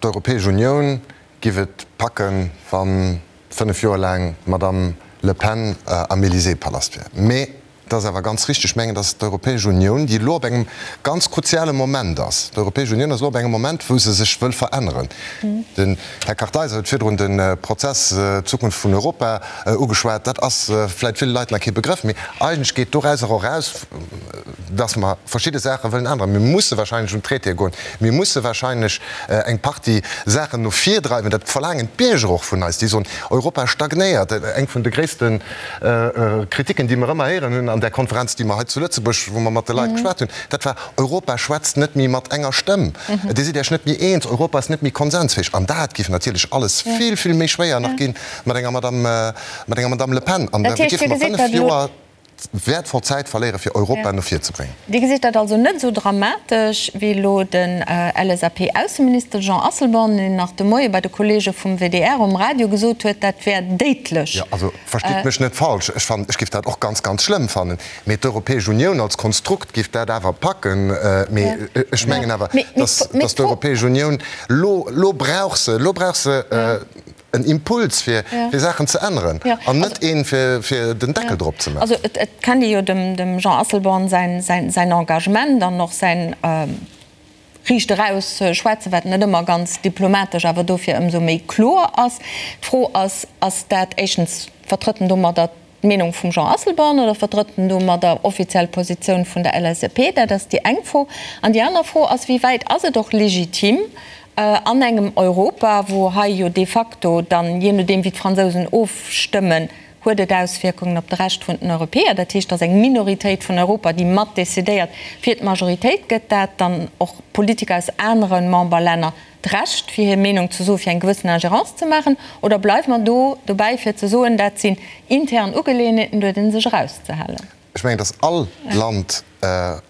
d'Europäesch Unioun giff et packen, wa 5 Joer laang d'Madame Le Pen am Élysée-Palast wär. Mee Et ass awer ganz richtig, ech mengen, dass d'Europäesch Unioun, déi elo op engem ganz kruziale Moment ass, d'Europäesch Unioun ass elo op engem Moment, wou se sech wëll veränneren. Den Här Kartheiser huet virdrun de Prozess Zukunft vun Europa ugeschwat. Dat ass vläicht ville Leit nach kee Begrëff, mee eigentlech geet dorauser och eraus, dass mer verschidde Saache wëllen änneren. Mir musse wahrscheinlech un d'Traitéë goen. Mir musse wahrscheinlech eng Partie Saachen no vir dreiwen. Dat verlaangen d'Bierger och vun eis. Déi soen, Europa stagnéiert. Eng vun de gréissten Kritiken, déi mer ëmmer héieren hunn an där Konferenz, déi mer hei zu Lëtzebuerg, wou mer mat de Leit geschwat hunn, dat war, Europa schwätzt net méi mat enger Stëmm. Dir sidd Iech net méi eens, Europa ass net méi konsensfäeg. An dat géif natierlech alles vill, vill méi schwéier nach gi mat enger Madame, mat enger Madame Le Pen. An da géife mer 5 Joer wäertvoll Zäit verléiere fir Europa no vir ze bréngen. Dir gesitt dat also net esou dramatesch wéi elo den LSAP-Ausseminister Jean Asselborn, deen nach de Moie bei de Kolleege vum WDR um Radio gesot huet, dat wär déidlech. Jo, also verstitt mech net falsch, ech fannen, ech géif dat och ganz, ganz schlëmm fannen, mee d'Europäesch Unioun als Konstrukt géif dat awer packen. Mee ech mengen awer, dass, dass d'Europäesch Unioun elo, elo brauch se, elo brauch se en Impuls fir fir Saachen ze änneren an net een fir fir den Deckel drop ze maachen. Also et kennt ee jo dem Jean Asselborn säin säin Engagement an och säin riicht eraus schwätzen, wat net ëmmer ganz diplomatesch, awer dofir ëmsou méi kloer ass. D'Fro ass, ass dat éischtens, vertrëtt en domadder d'Meenung vum Jean Asselborn oder vertrëtt en domadder offiziell Positioun vun der LSAP? Dat ass déi eng Fro. An déi aner Fro ass, wéi wäit ass et och legitim? An engem Europa, wou hei jo de facto dann, jee nodeem wéi d'Fransousen ofstëmmen, huet et Auswierkungen op de Rescht vun den Europäer. Dat heescht, et ass eng Minoritéit vun Europa, déi mat decidéiert fir d'Majoritéit. Gëtt dat dann och Politiker aus anere Memberlänner d'Recht, fir hir Meenung ze soen, fir eng gewëssen Ingérence ze maachen? Oder bleiwe mer do dobäi, fir ze soen, dat sinn intern Ugeleeënheeten, do huet ee sech erauszehalen? Ech mengen, datt all Land,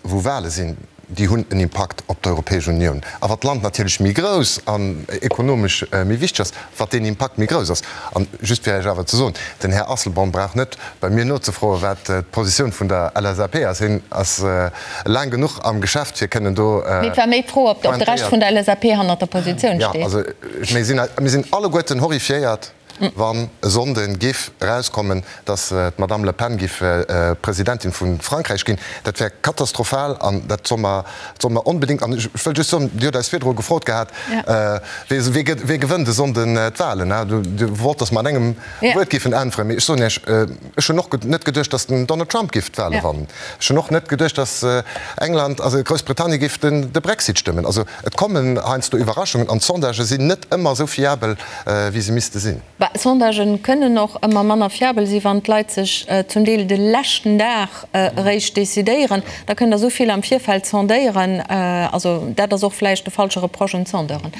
wou Wahle sinn, déi hunn en Impakt op d'Europäesch Unioun. A wat d'Land natierlech méi grouss an ekonomesch méi wichteg ass, wat deen Impakt méi grouss ass. An just fir Iech awer ze soen, den Här Asselborn brauch net bei mir nozefroen, wat d'Positioun vun der LSAP ass. Hien ass laang genuch am Geschäft, fir kënnen do Mee et war méi d'Fro, ob de Rescht vun der LSAP hannert der Positioun steet. Jo, also mir sinn alleguerten horrifiéiert, wann e Sonnde giff erauskommen, datt d'Madame Le Pen giff Presidentin vu Frankräich ginn, dat wär katastrophal an dat soll mer, soll mer onbedéngt, an ech wëll just soen, Dir hutt eis virdru gefrot gehat, wee gëtt, wee gewënnt e Sonnden d'Wahlen, Dir wollt, datt mer an engem Wuert giffen äntweren, mee ech soen Iech, ech hunn och net geduecht, datt den Donald Trump giff d'Wahle wannen. Ech hunn och net geduecht, datt England, also Groussbritannien giff de Brexit stëmmen. Also et kommen heiansdo Iwwerraschungen an d'Sondagë sinn net ëmmer esou fiabel, wéi se misste sinn. Bah, Sondagen kënnen och ëmmer manner fiabel sinn, wann d'Leit sech zum Deel de leschten Dag eréischt decidéieren. Da kënnt Der esou vill am Virfeld sondéieren. Also dat ass och vläicht de falsche Reproche un d'Sondeuren.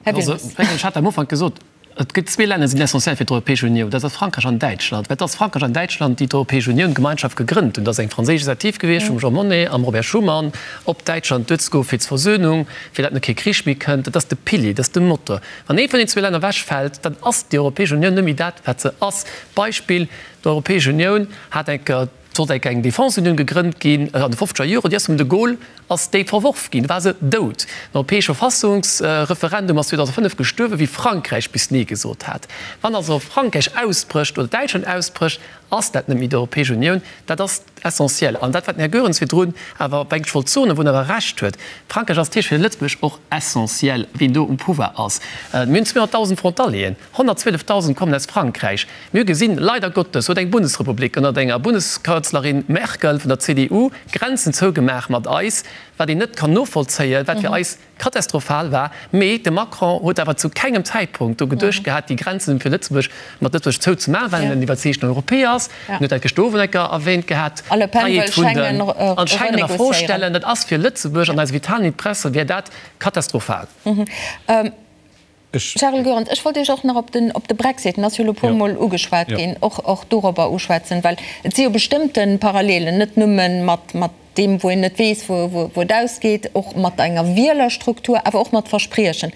Här Wilmes. Ech hat am Ufank gesot, et gëtt zwee Länner, déi sinn essentiell fir d'Europäesch Unioun, dat ass Frankräich an Däitschland. Well et ass Frankräich an Däitschland, déi d'Europäesch Unioun, d'Gemeinschaft gegrënnt hunn. Dat ass eng franséisch Initiativ gewiescht vum Jean Monnet am Robert Schuman, op Däitschland duerzegoen fir d'Versöhnung, fir datt net kee Krich méi kënnt. Dat ass de Pilier, dat ass de Motor. Wann ee vun den zwee Länner ewechfält, dann ass déi Europäesch Unioun net méi dat, wat se ass. Beispill, D'Europäesch Unioun hat eng Kéier, sollt eng Kéier eng Defenseunioun gegrënnt ginn an de fofzeger Joren, déi ass vum de Gaulle ass déi verworf ginn, du war se dout. Den europäesche Verfassungsreferendum ass 2005 gestuerwen, wéi Frankräich bis Nee gesot hat. Wann also Frankräich ausbrécht oder Däitschland ausbrécht, ass dat net méi d'Europäesch Unioun. Dat ass essentiel. An dat, wat den Här Goerens virdrun awer, mengt ech, wollt soen, wou en awer Recht huet, Frankräich ass natierlech fir Lëtzebuerg och essentiel, wien do um Pouvoir ass. Mir hunn 200.000 Frontalieren, 112.000 kommen aus Frankräich. Mir hu gesinn, leider Gottes huet eng Bundesrepublik ënnert enger Bundeskanzlerin Merkel vun der CDU Grenzen zougemaach mat eis, wat een net kann novollzéien, wat fir eis katastrophal war. Mee de Macron huet awer zu kengem Zäitpunkt do geduecht gehat, déi Grenzen fir Lëtzebuerg mat Lëtzebuerg zouzemaachen, well en en iwwerzeegten Europäer ass. En huet dat gëschter Owend eng Kéier erwähnt gehat, A Le Pen wëll d'Fräiheet vun den Schengen an Schengen a Fro renegociéieren. stellen. Dat ass fir Lëtzebuerg an eise vitalen Interesse wär dat katastrophal. Charel Goerens, ech wollt Iech och nach op den, op de Brexit, en ass jo elo e puermol ugeschwat ginn, och, och dorobber uschwätzen, well et si jo bestëmmte Parallelen, net nëmme mat, mat deem, wou een net weess, wou, wou et ausgeet, och mat enger Wielerstruktur, awer och mat Verspriechen.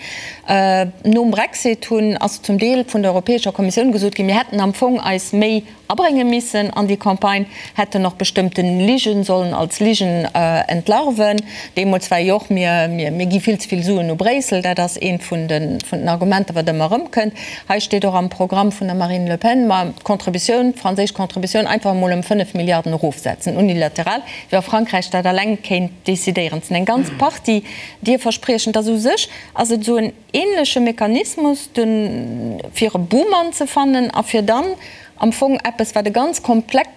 Nom Brexit hunn, ass zum Deel vun der Europäescher Kommissioun gesot ginn, mir hätten am Fong eis méi abrénge missen an déi Campagne, hätten och bestëmmten Ligen sollen als Ligen entlarven. Deemools war jo och, mir, mir gi vill ze vill Suen u Bréissel, dat ass eent vun de, vun den Argumenter, wat ëmmer erëmkënnt. Hei steet och am Programm vun der Marine Le Pen, ma d'Contributioun, d'franséisch Contributioun einfach emol ëm 5 Milliarden erofsetzen, unilateral, wéi wa Frankräich dat alleng kéint decidéieren. Et sinn eng ganz Partie Dierverspriechen. Et ass u sech ass et esou en ähnleche Mechanismus, de fir e Buhmann ze fannen a fir dann am Fong eppes, wat e ganz komplext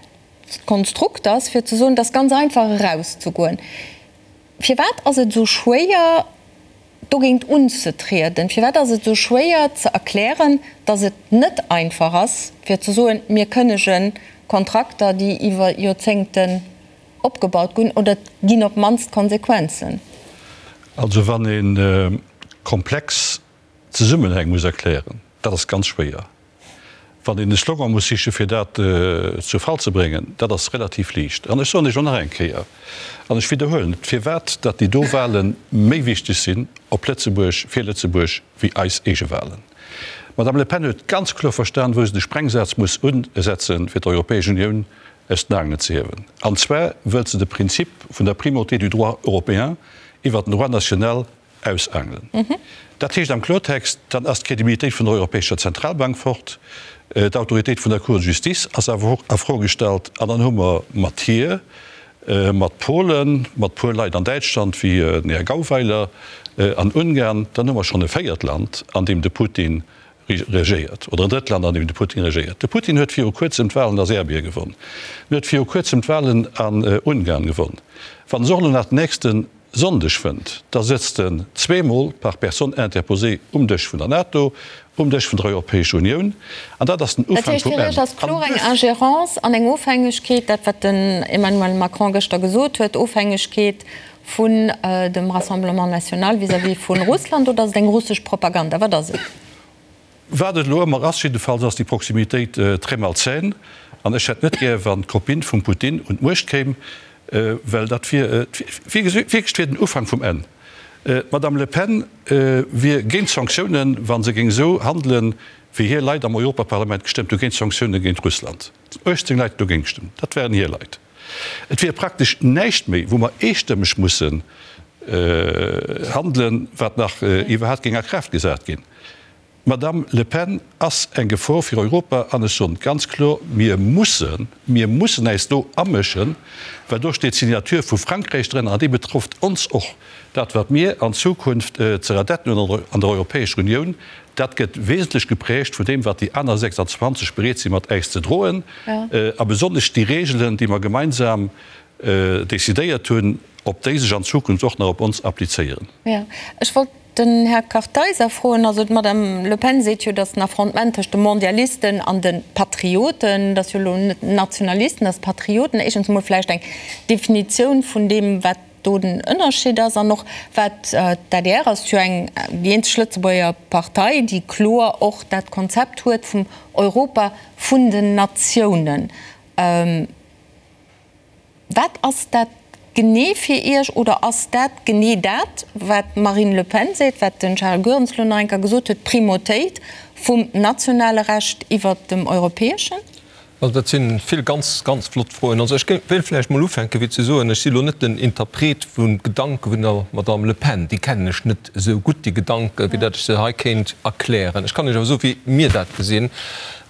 Konstrukt ass, fir ze soen, et ass ganz einfach erauszegoen. Firwat ass et esou schwéier, dogéint unzetrieden? Firwat ass et esou schwéier ze erklären, datt et net einfach ass, fir ze soen, mir kënnege Kontrakter, déi iwwer Joerzéngten opgebaut ginn, oder et ginn op d'mannst Konsequenzen? Also wann ee komplex Zesummenhäng muss erklären, dat ass ganz schwéier. Wann een e Slogan muss sichen, fir dat zu Fall ze bréngen, dat ass relativ liicht. An ech soen Iech och nach eng Kéier, an ech widderhuelen et, firwat datt déi do Wahle méi wichteg sinn op Lëtzebuerg, fir Lëtzebuerg, wéi eis eege Wahlen. D'Madame Le Pen huet ganz kloer verstan, wou se de Sprengsaz muss usetzen, fir d'Europäesch Unioun aus den Aangelen ze hiewen. An zwar wëllt se de Prinzip vun der Primauté du droit européen iwwert den Droit national ausaangelen. Dat heescht am Klortext, dann ass d'Credibilitéit vun der Europäescher Zentralbank fort, d'Autoritéit vun der Cour de justice ass awer och a Fro gestallt an dann hu mer mat hir, mat Polen, mat puer Leit an Däitschland wéi den Här Gauweiler an Ungarn, dann hu mer schonn e véiert Land, an deem de Putin regéiert, oder en drëtt Land, an deem de Putin regéiert. De Putin huet viru kuerzem d'Wahlen a Serbien gewonn, en huet viru kuerzem d'Wahlen an Ungarn gewonn. Wann se och elo nach den nächste. Sonndeg fënnt, da sëtzt en zweemol par personne interposée um Dësch vun der NATO, um Dësch vun der Europäescher Unioun, an dat ass den Dat Ufank heescht, vum fir Enn. Iech ass An kloer eng duerfir. Ingérence an eng Ofhängegkeet, dat wat den Emmanuel Macron gëschter gesot huet, Ofhängegkeet vun dem Rassemblement national vis-à-vis vu Russland, oder ass et eng russesch Propaganda? Wat ass et? Wat et elo ëmmer ass, jiddefalls ass déi Proximitéit très malsaine. An ech hätt net gär, wann d'Copine vum Putin un d'Muecht kéim, well dat wier wierklech wier den Ufank vum Enn. D'Madame Le Pen wier géint Sanktiounen, wa se géing esou handelen, wéi hir Leit am Europaparlament gestëmmt hu géint Sanktioune géint Russland. 18 Leit hunn dogéint gestëmmt, dat waren hir Leit. Et wier praktesch näischt méi, wou mer eestëmmeg mussen handelen, wat nach iwwerhaapt géing a Kraaft gesat ginn. D'Madame Le Pen ass eng Gefor fir Europa an ech soen ganz kloer, mir mussen, mir mussen äis do amëschen, well do steet d'Signature vu Frankräich drënner an déi betrëfft ons och. Dat wat mir an Zukunft ze radetten hunn an der Europäescher Unioun, dat gëtt wesentlech geprägt vun deem wat déi aner 26 bereet si mat äis ze droen a besonnesch déi Regelen, déi mer gemeinsam decidéiert hunn, ob déi sech an Zukunft och nach op ons applizéieren. Jo, ech wollt den Här Kartheiser froen. Also d'Madame Le Pen seet jo, datt den Affrontement tëscht de Mondialisten an de Patrioten, dat ass jo elo net Nationalisten, dat ass Patrioten, éischtens emol vläicht eng Definitioun vun deem, wat do den Ënnerscheed ass an och wat d'ADR ass jo eng, déi eenzeg Lëtzebuerger Partei, déi kloer och dat Konzept huet vum Europa vun den Natiounen. Wat ass dat genee fir Iech oder ass dat genee dat, wat d'Marine Le Pen seet, wat den Charles Goerens elo nach eng Kéier gesot huet, d'Primautéit vum nationale Recht iwwert dem europäeschen? Also dat si vill ganz, ganz flott Froen. Also ech wéilt vläicht mol ufänken, fir ze soen, ech si elo net den Interpret vu Gedanke vun der Madame Le Pen. Déi kennen ech net esou gutt, déi Gedanken, wéi datt ech se hei kéint erklären. Ech kann Iech awer soen, wéi mir dat gesinn.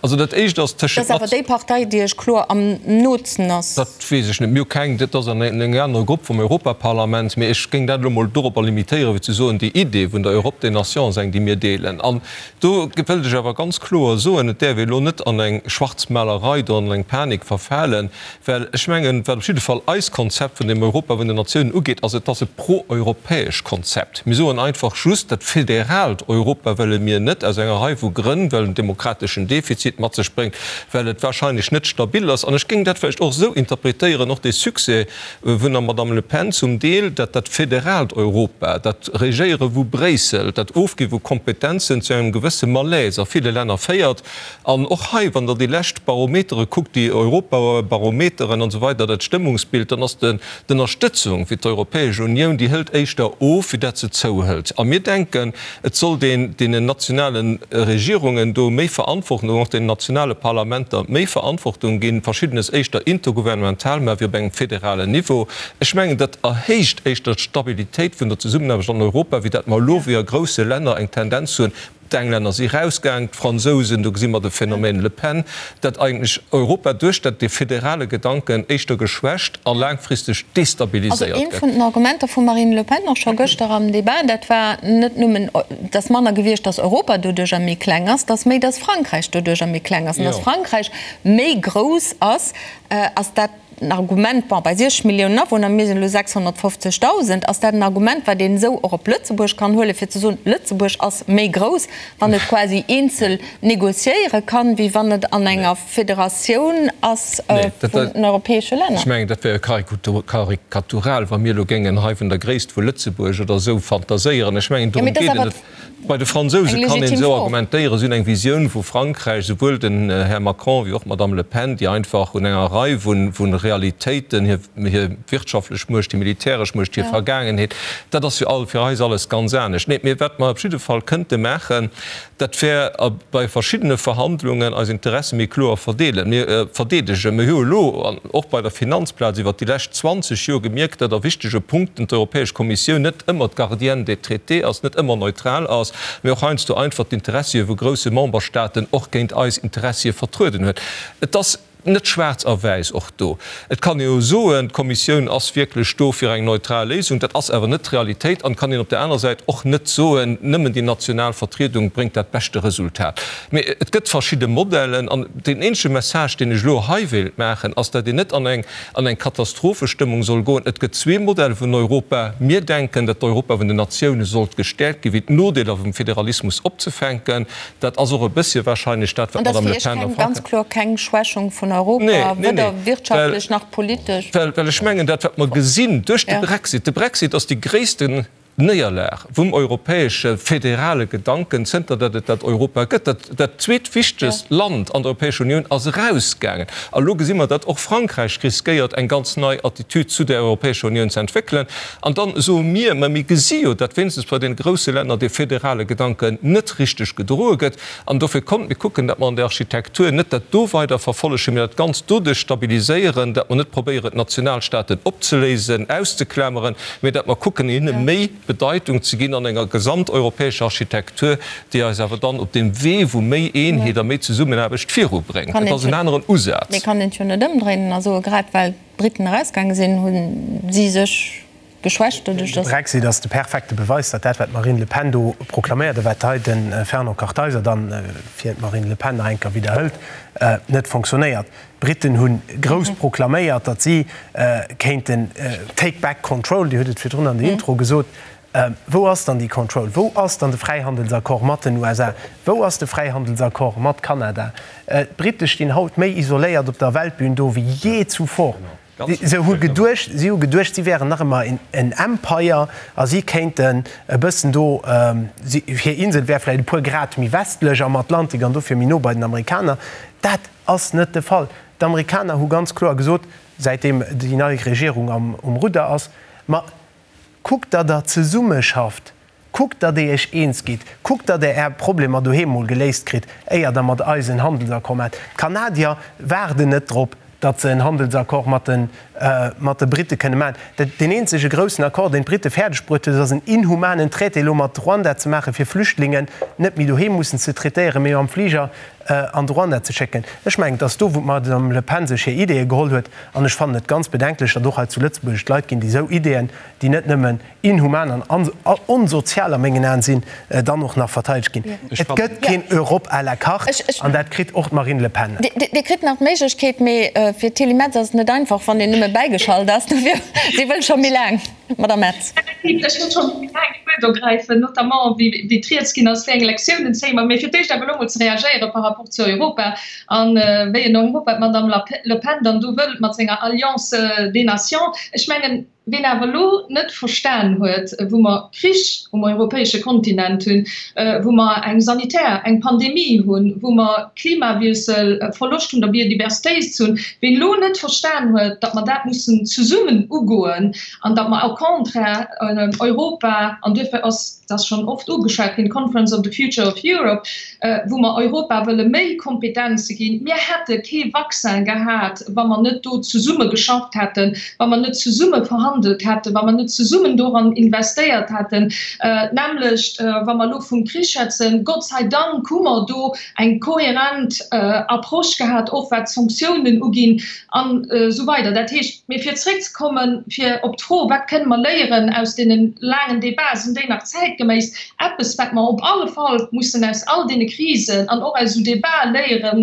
Also dat Éischt ass tëschent. Dat ass awer déi Partei, déi Iech kloer am nootsten ass. Dat weess ech net. Mir hu keng, dat ass an engem anere Grupp vum Europaparlament. Mee ech géing dat elo mol doropper limitéieren, fir ze soen, déi Idee vun der Europe des Nations ass eng, déi mir deelen. An do wëllt ech awer ganz kloer soen, et däerf ee elo net an eng Schwarzmalerei do, an eng Panik verfalen, well ech mengen, wat op jidde Fall eist Konzept vun dem Europa vun den Natiounen ugeet, ass, et ass e pro-europäesch Konzept. Mir soen einfach just, dat federaalt Europa wëlle mir net, aus enger Rei vu Grënn, well en demokrateschen Defizit mat sech bréngt, well et wahrscheinlech net stabil ass. An ech géing dat vläicht och esou interpretéieren, och dee Succès vun der Madame Le Pen zum Deel, dat dat federaalt Europa, dat Regéiere vu Bréissel, dat Ofgi vu Kompetenzen zu engem gewësse Malaise a ville Länner féiert. An och hei, wann Der déi lescht Barometere kuckt, déi Europabarometeren an esou weider, dat Stëmmungsbild, dann ass de D'Ënnerstëtzung fir d'Europäesch Unioun, déi hëlt éischter of, wéi dat se zouhëlt. A mir denken, et sollt een deenen nationale Regierungen do méi Verantwortung, och deenen nationale Parlamenter méi Verantwortung ginn, Verschiddenes éischter intergouvernemental, mä wéi op engem federalen Niveau. Ech mengen, dat erhéicht éischter d'Stabilitéit vun der Zesummenaarbecht an Europa, wéi dat mer elo wéi a grousse Länner eng Tendenz hunn, D'Englänner si rausgaang, d'Fransousen, do gesi mer de Phänomen Le Pen, dat eigentlech Europa duerch dat dee federale Gedanken éischter geschwächt a laangfristeg Also destabiliséiert eent gëtt. vun den Argumenter vum Marine Le Pen och scho gëschter am Debat, dat war net nëmmen, dass manner gewiescht, dass Europa doduercher méi kleng ass, dass méi, dass Frankräich doduercher méi kleng ass an dass Frankräich méi grouss ass, ass dat en Argument, bon, bei 60 Milliounen Awunner, mir sinn elo 650.000, ass dat en Argument, wat een esou och op Lëtzebuerg kann huelen, fir ze soen, Lëtzebuerg ass méi grouss, wann et quasi eenzel négociéiere kann, wéi wann et an enger Federatioun ass vun den europäesche Länner? Ech mengen, dat wär jo karikatural, wa mir elo géingen hei vun der Gréisst vu Lëtzebuerg oder esou fantaséieren. Ech mengen, dorëm geet et net. Bei de Fransouse kann een esou argumentéieren, si hunn eng Visioun vu Frankräich, souwuel den Här Macron wéi och d'Madame Le Pen, déi einfach un enger Rei vu Realitéiten, hir wirtschaftlech Muecht, hir militäresch Muecht, hir Vergaangenheet, dat ass jo all fir eis alles ganz anescht. Nee, mee wat mer op jidde Fall kënnte maachen, dat wär bei verschiddene Verhandlungen eis Interesse méi kloer verdeelen, mir verdeedegen. Mir hu elo an och bei der Finanzplaz iwwert déi lescht 20 Joer gemierkt, datt a wichtege Punkten d'Europäesch Kommissioun net ëmmer d'Gardienne des traités ass, net ëmmer neutral ass, mee och heiansdo einfach d'Interessie vu grousse Memberstaaten och géint eis Interessie vertrueden huet. Et ass. Net schwaarz a wäiss och do. Et kann ee jo soen, d'Kommissioun ass wierklech do fir eng neutral Léisung. Dat ass awer net d'Realitéit. An et kann een op där anerer Säit och net soen, nëmmen déi national Vertriedung bréngt dat beschte Resultat. Mee et gëtt verschidde Modellen. An deen eenzege Message, deen ech elo hei wéilt maachen, ass, datt een net an eng an eng Katastrophestëmmung soll goen. Et gëtt zwee Modelle vun Europa. Mir denken, datt d'Europa vun den Natioune sollt gestäerkt ginn, fir d'Nodeeler vum Federalismus opzefänken. Dat ass och e bëssche wahrscheinlech dat, wat An dat d'Madame ass Le fir Iech Pen a keng, ganz Frankräich. kloer keng Schwächung vun Europa, Nee, nee, weder nee, wirtschaftlech well, nach politesch? well, well ech mengen, dat wat mer gesinn duerch de Ja. Brexit, de Brexit ass déi gréissten Néierlag vum europäesche federale Gedanken, zënter datt et dat Europa gëtt. Dat, dat zweetwichtegst Land an der Europäescher Unioun ass erausgaangen. A lo gesi mer, datt och Frankräich riskéiert, eng ganz nei Attitüd zu der Europäescher Unioun ze entwéckelen. An dann soe mir, mä mir gesi jo, datt wéinstens bei deene grousse Länner dee federale Gedanken net richteg gedroe gëtt. An dofir kommt, mir kucken, datt mer an der Architektur net dat do weider verfollegen, mä dat Ganzt doduerch stabiliséieren, datt mer net probéieren, d'Nationalstaaten opzeléisen, auszeklameren, mä datt mer kucken, hinne méi Bedeitung ze ginn an enger gesamteuropäescher Architektur, déi eis awer dann op deem Wee vu méi Eenheet a méi Zesummenaarbecht virubréngt. Et ass en aneren Usaz. Mee kann een et jo net ëmdréinen a soen, grad well d'Briten erausgaange sinn, hu si sech geschwächt doduerch, De datt. Brexit ass de perfekte Beweis, datt dat, wat d'Marine Le Pen do proklaméiert a wat hei de Fernand Kartheiser dann fir d'Marine Le Pen nach eng Kéier widderhëlt, net fonctionnéiert. D'Briten hu grouss proklaméiert, datt si kéinten take back control, Dir hutt et virdrun an der Intro gesot. Wou ass dann déi Control? Wou ass dann de Fräihandelsaccord mat den USA? Wou ass de Fräihandelsaccord mat Kanada? D'Brite stinn haut méi isoléiert op der Weltbün do wéi jee zuvor. Si hu geduecht, si hu geduecht, si wären nach ëmmer en Empire a si kéinten e bëssen do, hir Insel wär vläicht e puer Grad méi westlech am Atlantik an dofir méi no bei den Amerikaner. Dat ass net de Fall. D'Amerikaner hu ganz kloer gesot, säitdeem déi nei Regierung um Rudder ass, Ma kuckt, datt Der zesummeschafft, kuckt, datt Der Iech eens gitt, kuckt, datt Der Är Problemer doheem mol geléist kritt, éier Der mat eis en Handelsaccord maacht. D'Kanadier waarden net drop, datt se en Handelsaccord mat de mat de Britte kënne maachen. Dat, deen eenzege groussen Accord, deen d'Britte fäerdeg bruet huet, ass en inhumanen Traité elo mat Ruanda ze maachen, fir Flüchtlingen net méi doheem mussen ze traitéieren, mee mam Fliger an de Ruanda ze schécken. Ech mengen, et ass do, wou d'Madame Le Pen sech hir Ideeë geholl huet. An ech fannen et ganz bedenklech, datt och hei zu Lëtzebuerg et Leit ginn, déi esou Ideeën, déi net nëmmen inhuman an onsozial a mengen Aen sinn, dann och nach verteidegt ginn. Et gëtt keen Europe à la carte, an dat kritt och d'Marine Le Pen net. Dir kritt nach d'Méiglechkeet, mee fir d'Tilly Metz ass et net einfach, wann een nëmme bäigeschalt ass. Dofir, si wëll scho méi laang. Madame Metz. Ech wollt scho méi laang d'Wuert ergräifen, notamment wéi d'Rieds ginn ass, wéi eng Lektiounen zéie mer. Mee fir d'éischt awer elo emol ze reagéiere par rapport zu Europa a wéi en Europa d'Madame Le Pen dann do wëllt mat senger Alliance des Nations. Ech mengen, Ween awer elo net verstan huet, wou mer Krich um europäesche Kontinent hunn, wou mer eng sanitär, eng Pandemie hunn, wou mer Klimawiessel, Verloscht vun der Biodiversitéit hunn, ween elo net verstan huet, datt mer dat mussen zesummen ugoen an datt mer au contraire Europa, an duerfir ass dat schonn oft ugeschwat ginn, d'Conference of the Future of Europe, wou mer Europa wëlle méi Kompetenze ginn. Mir hätte kee Vaccin gehat, wa mer net do zesumme geschafft hätten, wa mer net zesumme verhandelt hätten, wa mer net zesummen doran investéiert hätten. D'nämmlecht, wa mer elo vum Krich schwätzen, Gott sei Dank hu mer do eng kohärent Approche gehat, och wat d'Sanktiounen uginn an esou weider. Dat heescht, mee fir zréckzekommen, fir op d'Fro, wat kënne mer léieren aus deene laangen Débats, sinn déi nach zäitgeméiss? Eppes, wat mer op alle Fall mussen aus all deene Krisen an och aus esou Débatë léiere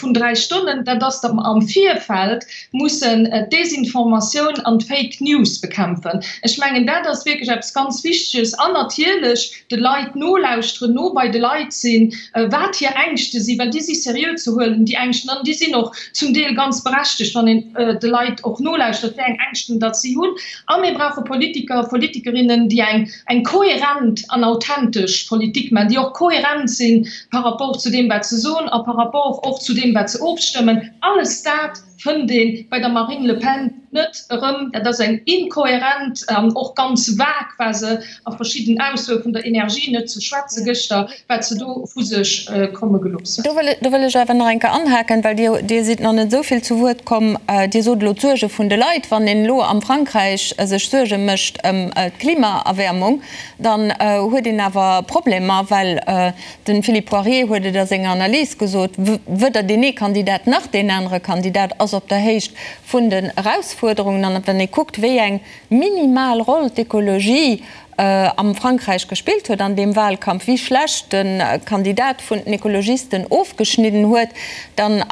vun dräi Stonnen, dat ass, datt mer am Virfeld mussen d'Desinformatioun an d'Fake News bekämpfen. Ech mengen, dat ass wierklech eppes ganz Wichteges. An natierlech de Leit nolauschteren, no bei de Leit sinn, wat hir Ängschte sinn, well déi si seriö ze huelen, déi Ängschten, an déi sinn och zum Deel ganz berechtegt, wann een de Leit och nolauschtert, wéi eng Ängschten datt si hunn. A mir brauche Politiker, Politikerinnen, déi eng eng kohärent an authentesch Politik maachen, déi och kohärent si par rapport zu deem, wat se soen a par rapport och zu deem, wat se ofstëmmen. Alles dat. fënnt ee bei der Marine Le Pen net erëm. Dat ass eng inkohärent an och ganz vag war se a verschidden Aussoe vun der Energie net ze schwätze gëschter, wat se do vu sech komme gelooss huet. Do wëll ech awer nach eng Kéier anhaken, well Dir, Dir sidd nach net esou vill zu Wuert komm. Dir sot elo d'Suerge vun de Leit. Wann een elo am Frankräich sech Suerge mécht ëm d'Klimaerwäermung, dann huet een awer Problemer, well de Philippe Poirier huet et a senger Analys gesot, weder deen ee Kandidat nach deen anere Kandidat ass op der Héicht vun den Erausfuerderungen. An wann ee kuckt, wéi eng minimal Roll d'Ekologie am Frankräich gespillt huet an deem Wahlkampf, wéi schlecht de Kandidat vun den Ekologisten ofgeschnidden huet, dann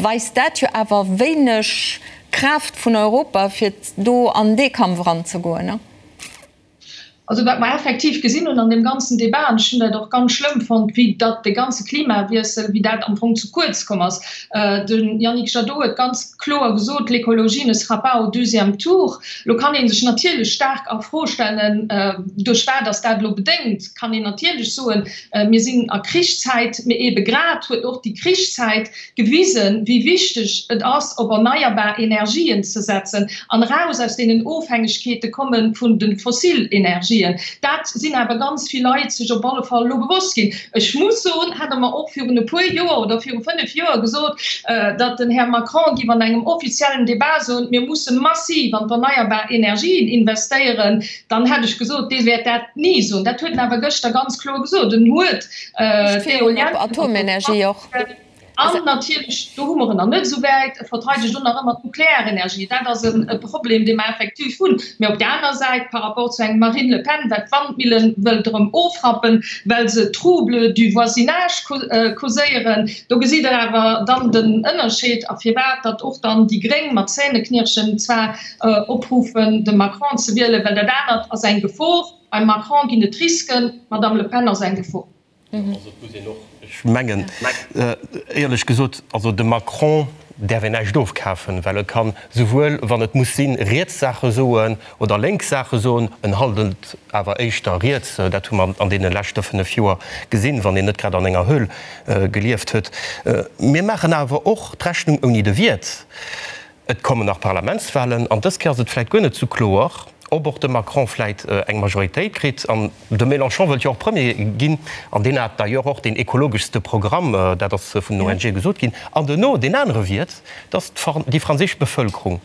weist dat jo awer wéineg Kraaft vun Europa, fir do an dee Kampf eranzegoen. Also wat mer effektiv gesinn hunn an deem ganzen Débat, an ech hunn dat och ganz schlëmm fonnt, wéi datt de ganze Klimawiessel, wéi dat am Fong ze kuerz komm ass. De Yannick Jadot huet ganz kloer gesot, L'écologie ne sera pas au deuxième tour. Lo kann ee sech natierlech staark a Fro stellen, duerch wat ass dat elo bedéngt? Kann een natierlech soen, mir sinn a Krichszäit, mee eebe grad huet och déi Krichszäit gewisen, wéi wichteg et ass, op erneierbar Energien ze setzen an eraus aus deenen Ofhängegkeete komme vun de fossil Energien. Dat sinn awer ganz vill Leit sech op alle Fall elo bewosst ginn. Ech muss soen, hätt Der mer och virun e puer Joer oder viru fënnf Joer gesot, datt den Här Macron géif an engem offiziellen Débat soen, mir musse massiv an d'erneierbar Energien investéieren, dann hätt ech gesot, dee wäert dat ni soen. Dat huet en awer gëschter ganz kloer gesot. En huet d'Eolienne. Atomenergie och. An natierlech, do hu mer en nach net esou wäit, e verteidegt och nach ëmmer d'Nuklearenergie. Dat ass e Problem, dee mer effektiv hunn. Mee op där aner Säit, par rapport zu engem Marine Le Pen, wat d'Wandmillen wëllt erëm ofrappen, well se Troubles du voisinage causéieren, do gesitt Der awer dann den Ënnerscheed a firwat datt och dann déi Gréng mat Zähneknirschen zwar opruffen, de Macron ze wielen, well dat anert ass eng Gefor. Beim Macron ginn et Risken, d'Madame Le Pen ass eng Gefor. Also et muss een och, ech mengen, éierlech gesot, also dem Macron däerf een näischt ofkafen, well e kann souwuel, wann et muss sinn, riets Saache soen oder lénks Saache soen. En handelt awer éischter riets, dat hu mer an deene leschte 5 Joer gesinn, wann een net grad an enger Höhl gelieft huet. Mir maachen awer och d'Rechnung ouni de Wiert. Et kommen nach Parlamentswahlen an dës Kéier ass et vläit guer net sou kloer, ob och de Macron vläit eng Majoritéit kritt. An de Mélenchon wëllt jo och Premier ginn an deen hat d'ailleurs och deen ekologeschste Programm, dat ass vun den ONGe gesot ginn. An duerno deen anere Wiert, dass déi franséisch Bevëlkerung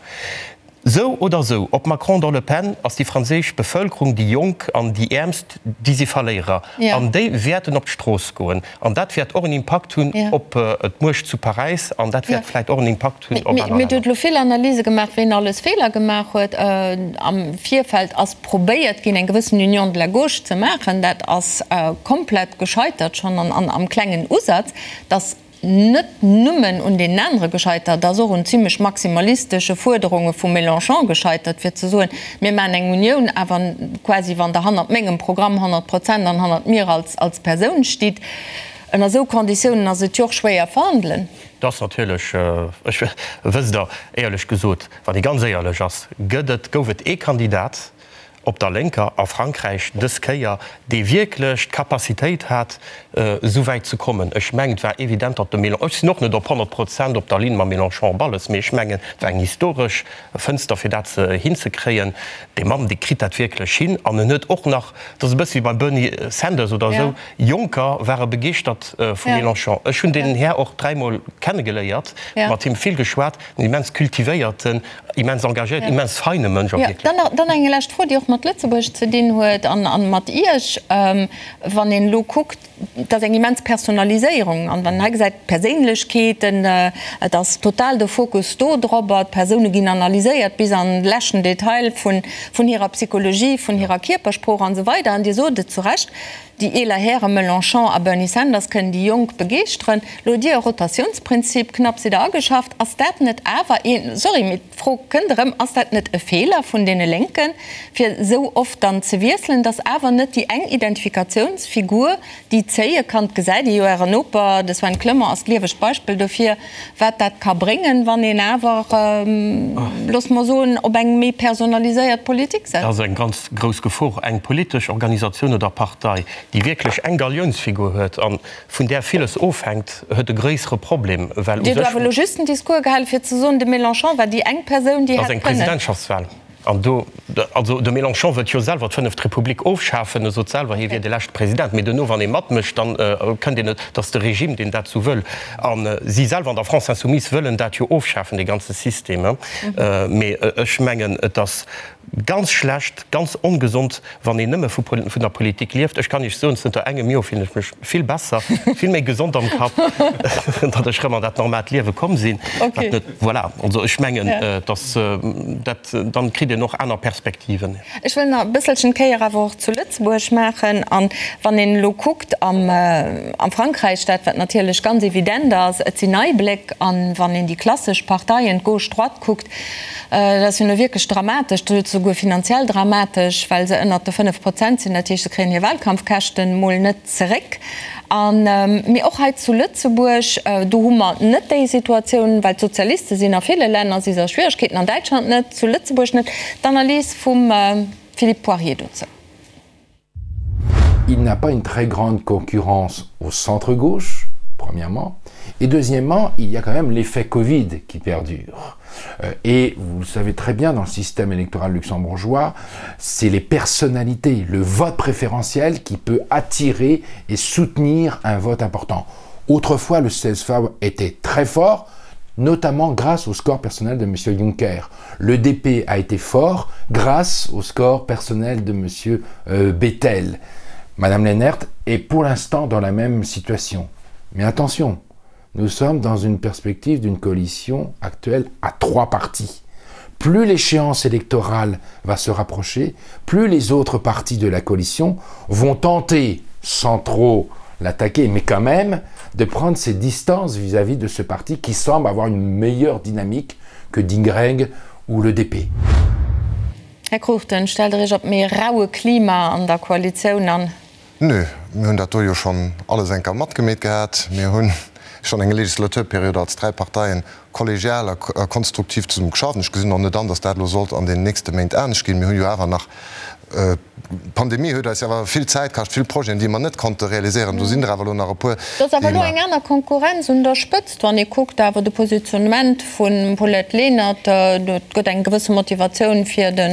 sou oder sou, ob Macron oder Le Pen, ass déi franséisch Bevëlkerung, déi Jonk an déi Äermst, déi si Verléierer an déi wäerten op d'Strooss goen. An dat wäert och en Impakt hunn op d'Muecht zu Paräis an dat wäert vläit och en Impakt hunn op aner Länner. Mee Dir hutt elo vill Analyse gemaach, ween alles Feeler gemaach huet. Am Virfeld ass probéiert ginn, eng gewëssen Union de la gauche ze maachen. Dat ass komplett gescheitert, schonn am klengen Usaz. Dass net nëmmen un deenen anere gescheitert, ass och un zimlech maximalistesche Fuerderunge vum Mélenchon gescheitert, fir ze soen, mir maachen eng Unioun, awer quasi wann Der hannert mengem Programm 100 Prozent an hannert mir als als Persoun stitt. Ënner esou Konditiounen ass et jo och schwéier verhandelen. Et ass natierlech, ech, wësst Der, éierlech gesot, wann ee ganz éierlech ass, gëtt et, gouf et ee Kandidat, op der Lénker a Frankräich dës Kéier, dee wierklech d'Capacitéit hat, esou wäit ze kommen. Ech mengen, et war evident, datt de Mélenchon, ech sinn och net op 100 Prozent op der Linn mam Mélenchon op alles, mee ech mengen, et war eng historesch Fënster, fir dat hinzekréien. Dee Mann, dee kritt dat wierklech hin. An en huet och nach, et ass e bësse wéi beim Bernie Sanders oder esou, Jonker ware begeeschtert vum Mélenchon. Ech hunn deen Här och dräimol kennegeléiert, mat him vill geschwat, en immens kultivéierten, Immens engagéiert, immens feine Mënsch och wierklech. Dann eng lescht Fro, déi och mat Lëtzebuerg ze dinn huet an mat Iech. Wann een elo kuckt, et ass eng immens Personaliséierung an wann een hei gesäit, d'Perséinlechkeeten, et ass total de Fokus do dorobber, d'Persoune ginn analyséiert bis an de leschten Detail vun hirer Psychologie, vun hirer Kierpersprooch an esou weider. An Dir sot et zu Recht, Déi eeler Häre Melenchon a Bernie Sanders kënnen déi Jonk begeeschteren. Lo hutt Dir e Rotatiounsprinzip knapps wieder ageschafft. Ass dat net awer een, sorry, mee d'Fro kënnt erëm, ass dat net e Feeler vun deene Lénken, fir esou oft dann ze wiesselen, datt awer net déi eng Identifikatiounsfigur déi zéie kann? Et gesäit ee jo, Ären Noper, de Sven Clement, ass d'liewegt Beispill dofir, wat dat ka bréngen, wann een awer, loosse mer soen, op eng méi personaliséiert Politik setzt. Dat ass eng ganz grouss Gefor. Eng politesch Organisatioun oder Partei. déi wierklech eng Galiounsfigur huet a vun där villes ofhänkt, huet e gréissere Problem, well u Dir hutt sech. awer elo just den Discours gehalen, fir ze soen, de Mélenchon war déi eng Persoun, déi Dat ass hätt eng kënnen. Presidentschaftswahl. An do, also de Mélenchon wëllt jo selwer d'fënneft Republik ofschafen, e sot selwer, hie wier de leschte President, mee duerno, wann ee matmécht, dann kënnt een net, et ass de Regime, deen dat sou wëll. A si selwer an der France Insoumise wëllen dat jo ofschafen, dee ganze System. Mee ech mengen, et ass ganz schlecht, ganz ongesond, wann een nëmme vu vun der Politik lieft. Ech kann Iech soen, zënter engem Joer fillen ech mech vill besser, vill méi gesond am Kapp, datt ech rëm an dat normaalt Liewe komm sinn. Wat net, voilà. Also ech mengen, datt dat, dann kritt een och aner Perspektiven. Ech wëll nach e bësselchen d'Kéier awer och zu Lëtzebuerg maachen. An wann een elo kuckt am am Frankräich, dat wat natierlech ganz evident ass, et sinn nei Bléck. An wann een déi klassesch Parteien, d'Gauche, d'Droite kuckt, Dat ass jo nu wierklech dramatesch, dat ass souguer finanziell dramatesch, well se ënnert de 5 Prozent sinn. Dat heescht, se kréien hir Wahlkampfkäschten mol net zeréck. An, mee och hei zu Lëtzebuerg, do hu mer net déi Situatioun, well d'Sozialiste sinn a ville Länner, si se a Schwieregkeeten, an Däitschland net, zu Lëtzebuerg net. D'Analys vum Philippe Poirier dozou. Il n'a pas une très grande concurrence au centre-gauche, premièrement. Et deuxièmement, il y a quand même l'effet Covid qui perdure. Euh, et vous le savez très bien, dans le système électoral luxembourgeois, c'est les personnalités, le vote préférentiel qui peut attirer et soutenir un vote important. Autrefois, le CSV était très fort, notamment grâce au score personnel de M. Juncker. Le DP a été fort grâce au score personnel de M. Euh, Bettel. Madame Lennert est pour l'instant dans la même situation. Mais attention, nous sommes dans une perspective d'une coalition actuelle à trois partis. Plus l'échéance électorale va se rapprocher, plus les autres partis de la coalition vont tenter, sans trop l'attaquer, mais quand même, de prendre ses distances vis-à-vis -vis de ce parti qui semble avoir une meilleure dynamique que Dingreng ou le DP. Här Cruchten, stellt Der Iech op méi raue Klima an der Koalitioun an? Nö, mir hunn dat do jo schonn alles eng Kéier matgemeet gehat. Mir hu schonn eng Legislaturperiod als dräi Parteien kollegial a konstruktiv zesumme geschafft. Ech gesinn och net an, datt dat elo sollt an den nächste Méint anescht ginn. Mir hu jo awer nach, d'Pandemie huet eis jo awer vill Zäit kascht, vill Projeten, déi mer net konnte realiséieren. Do sinn der awer elo nach e puer, Et ass awer déi elo mer. eng aner Konkurrenz un der Spëtzt, wann ee kuckt awer de Positionnement vum Paulette Lenert. Et gëtt eng gewësse Motivatioun fir de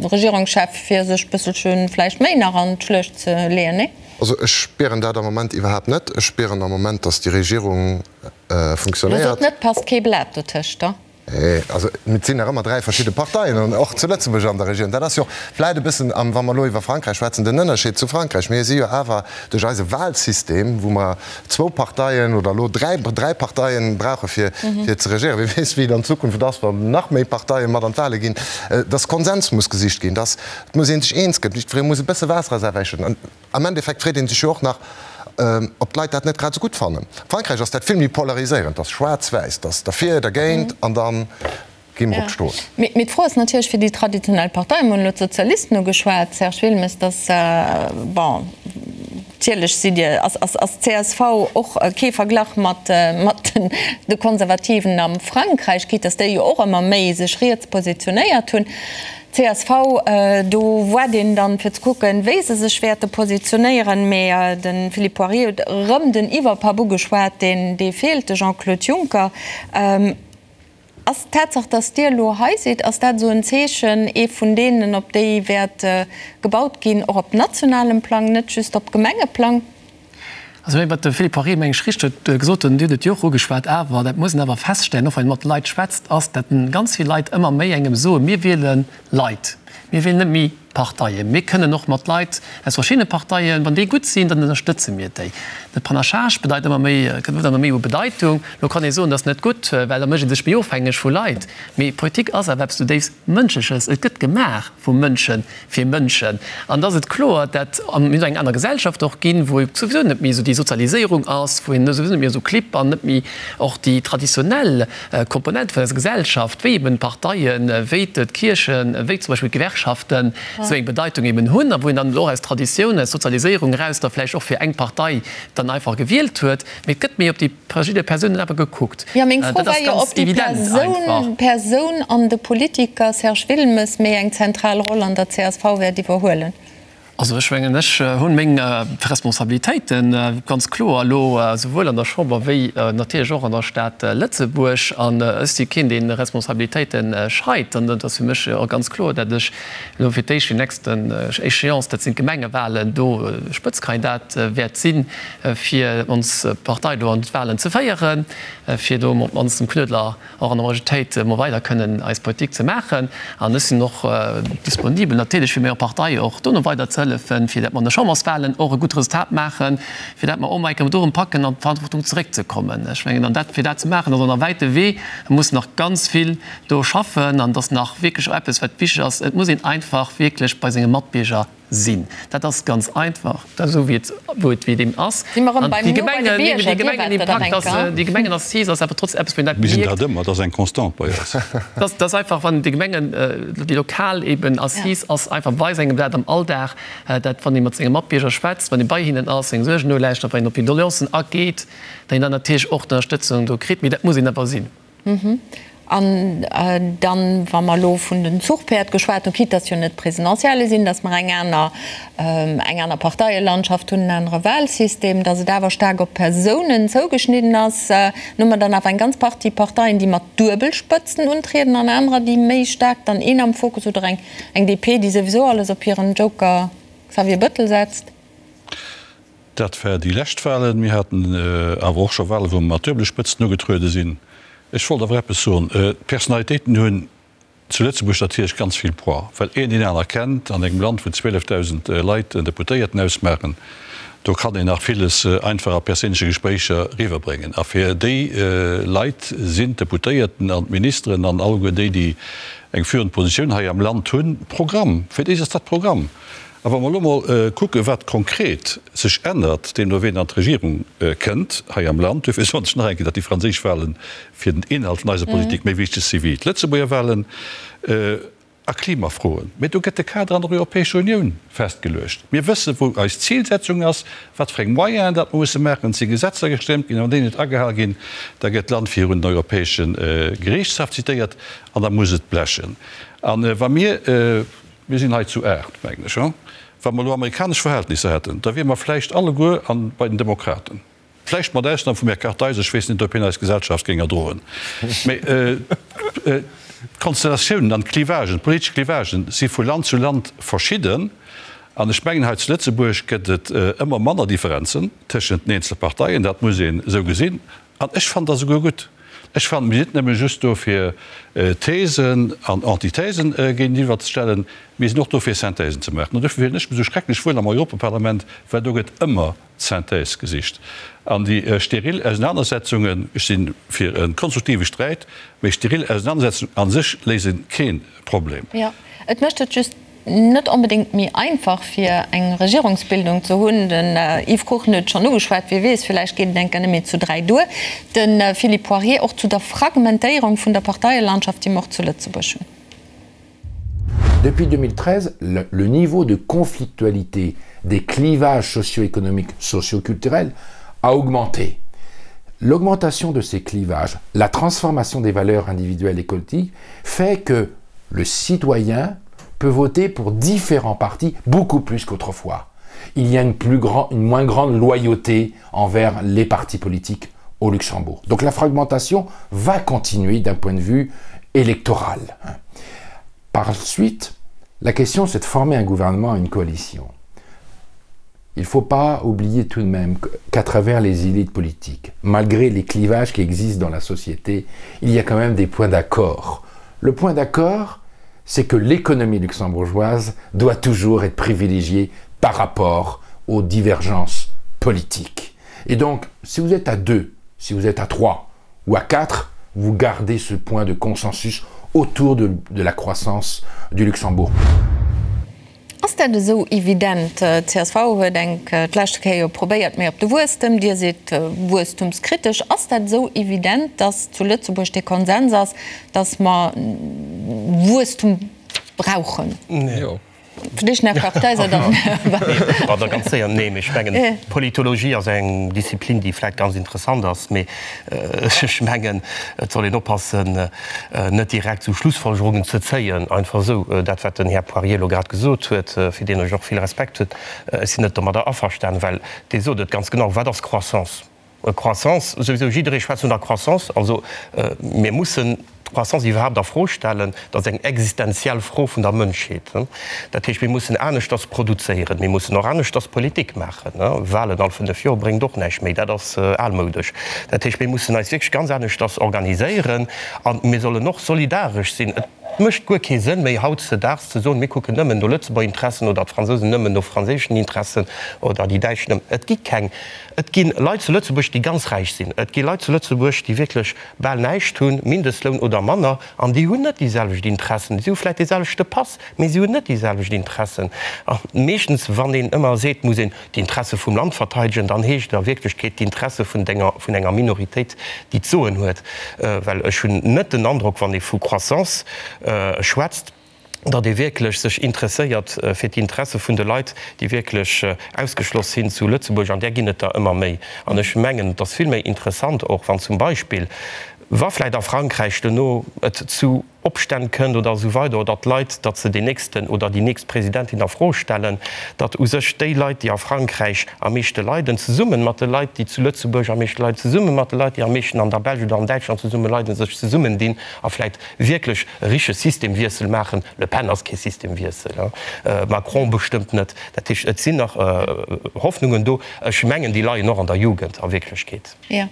Regierungschef, fir sech bësselche vläicht méi nach an d'Schluecht ze leeën, nee? Also ech spieren dat am Moment iwwerhaapt net. Ech spieren am Moment, datt déi Regierung Lo funktionéiert. sot net, passt kee Blat dotëscht, da? Nee, also et sinn nach ëmmer dräi verschidde Parteien, an och zu Lëtzebuerg an der Regierung. Dat ass jo och vläit e bëssen, wa mer elo iwwer Frankräich schwätzen, den Ënnerscheed zu Frankräich. Mir si jo awer duerch eise Wahlsystem, wou mer zwou Parteien oder elo dräi, dräi Parteien brauche fir, fir ze regéieren, wie weess, wéi et an Zukunft ass, wann nach méi Parteie mat an d'Wahle ginn, dass Konsens muss gesicht ginn, dass et muss ee sech eens gëtt, jiddweree muss e bësse Waasser a säi Wäi schëdden. Am Endeffekt freet ee sech jo och nach, ob d'Leit dat net grad esou gutt fannen. A Frankräich ass dat vill méi polariséierend, dat ass schwaarz-wäiss, dat ass derfir, dergéint an da gi mer op d'Strooss. Mee d'Fro ass natierlech fir déi traditionell Parteien, mir hunn elo d'Sozialisten ugeschwat, Serge Wilmes, dass, bon, natierlech sidd Dir, ass d'CSV och kee Verglach mat de Konservativen am Frankräich, quitte dass déi jo och ëmmer méi sech riets positionéiert hunn. Csv, do waart een dann fir ze kucken, wéi se sech wäerte positionéieren. Mee de Philippe Poirier huet erëm den Iwwerpapp ugeschwat, deen dee feelt, de Jean-Claude Juncker. Ass d'Tatsaach, datt Dir elo hei sidd, ass dat esou en Zeechen, ee vun deenen, op déi wäert gebaut ginn, och op nationalem Plang, net just op Gemengeplang? Also wéi wat de Philippe Poirier, meng ech, richteg huet gesot huet, an Dir hutt et jo och ugeschwat, awer dat muss een awer feststellen, och wann ee mat de Leit schwätzt, ass, datt ganz vill Leit ëmmer méi engem soen, mir wiele Leit, mir wielen net méi Parteien. Mir kënnen och mat Leit aus verschiddene Parteien, wann déi gutt sinn, dann ënnerstëtze mir déi. De Panachage bedeit ëmmer méi, huet ëmmer méi u Bedeitung. Elo kann ee soen, dat ass net gutt, well da mécht ee sech méi ofhängeg vu Leit. Mee Politik ass awer eppes zudéifst Mënschleches. Et gëtt gemaach vu Mënschen fir Mënschen. An da ass et kloer, dat mir hunn eng aner Gesellschaft och ginn, wou souwisou net méi esou déi Sozialiséierung ass, wou een souwisou net méi esou Clibb an net méi och déi traditionell Komponente vun eiser Gesellschaft, wéi eben d'Parteien, wéi d'Kierchen, wéi zum Beispill d'Gewerkschaften esou eng Bedeitung eben hunn a wou een dann och aus Traditioun, aus Sozialiséierung eraus da vläicht och fir eng Partei dann einfach gewielt huet. Mee et gëtt méi op déi verschidde Persounen awer gekuckt. Jo, meng Fro Dat ass war jo, ganz ob déi evident einfach. Persoun, Persoun an de Politiker Serge Wilmes méi eng zentral Roll an der csv wäert iwwerhuelen. Also ech mengen, ech hunn meng Responsabilitéite ganz kloer elo souwuel an der Chamber wéi natierlech och an der Stad Lëtzebuerg. An ech si keen, dee Responsabilitéite scheit. An et ass fir mech och ganz kloer, datt ech elo fir d'éischt déi nächsten Échéance, dat sinn d'Gemengewahlen, do Spëtzkandidat wäert sinn, fir ons Partei do an d'Wahlen ze féieren, fir do op d'mannst dem Knuedler och an der Majoritéit mol weider kënnen eis Politik ze maachen. An ech sinn och disponibel natierlech fir menger Partei och dono weider ze hëllefen, fir dat mer an de Chamberswahlen och e gutt Resultat maachen, fir dat mer och mol eng Kéier do erëm packen an d'Verantwortung zeréckzekommen. Ech mengen, an dat, fir dat ze maachen, ass och nach e wäite Wee. Et muss nach ganz vill do schaffen an et ass nach wierklech och eppes wat wichteg ass, Et muss een einfach wierklech bei senge Matbierger Sinn. Dat ass ganz einfach, dat esou wéi et wou et wéi et eben ass. Si mer erëm beim No bei de Bierger, Dir waart dat nach eng Kéier. Déi Gemengenassise ass awer trotzdem eppes, wou een dat Mir sinn dat ëmmer, dat ass eng Constante bei eis. Dat ass einfach, wann déi Gemengen, déi lokal eben Assise ass einfach, weist engem dat am Alldag, dat wann ee mat senge Matbierger schwätzt, wann ee bei hinnen ass, seng Suergen nolauschtert, wann een op hir Doleancen ageet, datt een dann natierlech och d'Ënnerstëtzung do kritt. Mee dat muss een awer sinn. An dann, wa mer elo vun den Zuchpäerd geschwat hunn, quitte dass jo net d'Presidentielle sinn, dass mer eng aner, eng aner Parteielandschaft hunn, en anere Wahlsystem, dass et awer staark op Persounen zougeschnidden ass, dann hu mer dann awer eng ganz Partie Parteien, déi mat Duebelspëtzen untrieden an anerer, déi méi staark dann een am Fokus oder eng, eng DP, déi souwisou alles op hiren Joker Xavier Bëttel setzt. Dat war déi lescht Wahlen. Mir haten awer och scho Wahlen, wou mer mat duebele Spëtzen ugetruede sinn. Ech wollt awer eppes soen. D'Personalitéiten hunn zu Lëtzebuerg natierlech ganz vill Poids, well een deen aner kennt. An engem Land, wou 12.000 Leit en Deputéierten ausmaachen, do kann een nach villes einfach a perséinleche Gespréicher riwwerbréngen. A fir déi Leit sinn d'Deputéierten an d'Ministeren an alleguer déi, déi eng führend Positioun hei am Land hunn, Programm. Fir déi ass dat Programm. A wa mer elo mol kucken, wat konkret sech ännert, deemno ween an d'Regierung kënnt hei am Land, duerfir soen ech nach eng Kéier, datt déi franséisch Wahlen fir den Inhalt vun eiser Politik méi wichteg si wéi d'Lëtzebuerger Wahlen a Klimafroen. Mee do gëtt de Kader an der Europäescher Unioun festgeluecht. Mir wëssen, wou eis Zilsetzung ass, wat fir eng Moyenen dat mer musse maachen. Et si Gesetzer gestëmmt ginn, a wann déi net agehal ginn, da gëtt d'Land virun den Europäesche Geriichtshaff zitéiert an da muss et blechen. A wa mir. Mir sinn hei zu 8, mengen ech. Wa mer elo amerikanesch Verhältnisser hätten, da wiere mer vläicht alleguer an bei den Demokraten. Vläicht mat Ausnam vum Här Kartheiser, ech weess net, ob hien eis Gesellschaft géing erdroen. Mä d'Konstellatiounen an d'Clivagen, d'politesch Clivagen si vu Land zu Land verschidden. An ech mengen, hei zu Lëtzebuerg gëtt et ëmmer manner Differenzen tëschent den eenzele Parteien. Dat muss een esou gesinn. An ech fannen dat esouguer gutt. Ech fannen, mir sinn net nëmme just do fir Thesen an Antithesen géintiwwer ze stellen, mir sinn och do fir Synthèsen ze maachen. An dofir fillen ech mech esou schrecklech wuel am Europaparlament, well do gëtt ëmmer d'Synthèse gesicht. An déi steril Ausenanersetzungen, ech si fir e konstruktive Sträit, mee steril Ausenanersetzungen a sech léise kee Problem. Jo, et mécht et just net onbedéngt méi einfach fir eng Regierungsbildung ze hunn. Den Yves Cruchten huet et schonn ugeschwat, wie weess, villäicht geet et eng Kéier net méi zu 3 duer. De Philippe Poirier och zu der Fragmentéierung vun der Parteielandschaft, déi mer och zu Lëtzebuerg hunn. Depuis 2013, le niveau de conflictualité des clivages socio-économiques, socio-culturels a augmenté. L'augmentation de ces clivages, la transformation des valeurs individuelles et collectives fait que le citoyen peut voter pour différents partis beaucoup plus qu'autrefois. Il y a une, plus grand, une moins grande loyauté envers les partis politiques au Luxembourg. Donc la fragmentation va continuer d'un point de vue électoral. Par suite, la question c'est de former un gouvernement, une coalition. Il ne faut pas oublier tout de même qu'à travers les élites politiques, malgré les clivages qui existent dans la société, il y a quand même des points d'accord. Le point d'accord, c'est que l'économie luxembourgeoise doit toujours être privilégiée par rapport aux divergences politiques. Et donc, si vous êtes à deux, si vous êtes à trois ou à quatre, vous gardez ce point de consensus autour de, de la croissance du Luxembourg. Ass dat esou evident? Csv huet enk d'leschte Kéier jo probéiert méi op de Wuesstem, Dir sidd wuesstumskritesch. Ass dat esou evident, datt zu Lëtzebuerg dee Konsens ass, datt mer Wuesstum brauchen? Jo. Fir d'éischt nach Kartheiser, dann. Bon, da ganz séier. Nee, mee ech mengen, Politologie ass eng Disziplin, déi vläicht ganz interessant ass, mee ech mengen, et soll een oppassen, net direkt esou Schlussfolgerungen ze zéien, einfach esou. Dat, wat den Här Poirier elo grad gesot huet, fir deen ech och vill Respekt hunn, ech sinn net domadder averstanen, well dee sot et ganz genau, Wat ass Croissance? Croissance, souwisou jidderee schwätzt vun der Croissance, also mir mussen d'Croissance iwwerhaapt a Fro stellen, dat ass eng existenziell Fro vun der Mënschheet. Dat heescht, mir mussen aneschters produzéieren, mir mussen och aneschters Politik maachen. Wahlen all 5 Joer bréngt och näischt méi, dat ass almoudesch. Dat heescht, mir mussen eis wierklech ganz aneschters organiséieren a mir sollen och solidaresch sinn. Et mécht guer kee Sënn méi hautzedaags ze soen, mir kucken nëmmen no Lëtzebuerger Interessen oder d'Fransousen nëmmen no franséischen Interessen oder déi Däitsch nëmmen. Et gi keng Et gi Leit zu Lëtzebuerg, déi ganz räich sinn. Et gi Leit zu Lëtzebuerg, déi wierklech bal näischt hunn, Mindestloun oder manner, an déi hunn net déi selwecht Interessen. Si hu vläicht dee selwechte Pass, mee si hunn net déi selwecht Interessen. A meeschtens, wann een ëmmer seet, muss een d'Interesse vum Land verteidegen, dann heescht et a Wierklechkeet d'Interesse vun denger, vun enger Minoritéit, déi d'Soen huet. Well ech hunn net den Androck, wann ee vu Croissance schwätzt, datt ee wierklech sech interesséiert fir d'Interesse vun de Leit, déi wierklech ausgeschloss sinn zu Lëtzebuerg, an där ginn et der ëmmer méi. An ech mengen, et ass vill méi interessant och, wann zum Beispill, wa vläicht a Frankräich duerno et zu Opstänn kënnt oder esou weider oder d'Leit, datt se deen nächsten oder déi nächst Presidentin a Fro stellen, datt u sech déi Leit, déi a Frankräich am meeschte leiden, zesumme mat de Leit, déi zu Lëtzebuerg am meeschte leiden, zesumme mat de Leit, déi am meeschten an der Belsch oder an Däitschland zesumme leiden, sech zesummendinn a vläicht wierklech e richtege Systemwiessel maachen. Le Pen ass kee Systemwiessel, Macron bestëmmt net. Dat heescht, et sinn nach Hoffnungen do. Ech mengen, déi leien och an der Jugend a Wierklechkeet. Jo.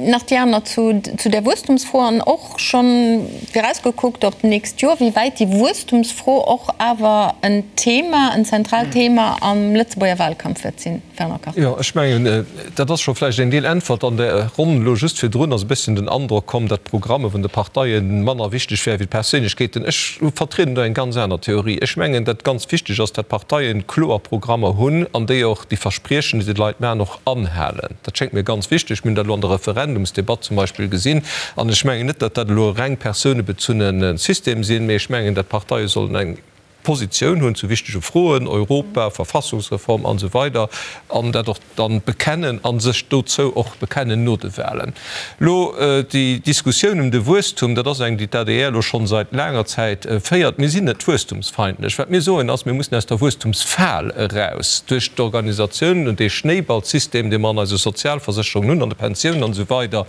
Nach déi aner zu der Wuesstumsfro an och schonn virausgekuckt op d'nächst Joer, wéi wäit déi Wuesstumsfro och awer en Thema, en zentraalt Thema am Lëtzebuerger Wahlkampf wäert sinn. Fernand Kartheiser. Jo, ech mengen, dat ass scho vläicht eng Deel Äntwert. An der Ronn elo just virdrun ass e bësschen den Androck komm, datt d'Programme vun de Parteie manner wichteg wäre wéi d'Perséinlechkeeten. Ech vertrieden do eng ganz aner Theorie. Ech mengen, datt ganz wichteg ass, datt d'Parteie kloer Programmer hunn an déi och déi Verspriechen, déi se de Leit maachen, och anhalen. Dat schéngt mir ganz wichteg. Mir hunn dat elo an der Referendumsdebatt zum Beispill gesinn. An ech mengen net, datt dat elo e reng persounebezunne System sinn, mee ech mengen, datt d'Parteie sollen eng Positioun hunn zu wichtege Froen, Europa, Verfassungsreform an esou weider, an dat och dann bekennen a sech dozou och bekennen no de Wahlen. Elo déi Diskussioun ëm de Wuesstum, dat ass eng, déi d'ADR elo schonn seit laanger Zäit féiert. Mir sinn net wuesstumsfeindlech. Wat mir soen ass, mir mussen aus der Wuesstumsfal eraus duerch d'Organisatioun und dee Schnéiballsystem, dee mer an eise Sozialversécherungen hunn, an de Pensiounen an esou weider.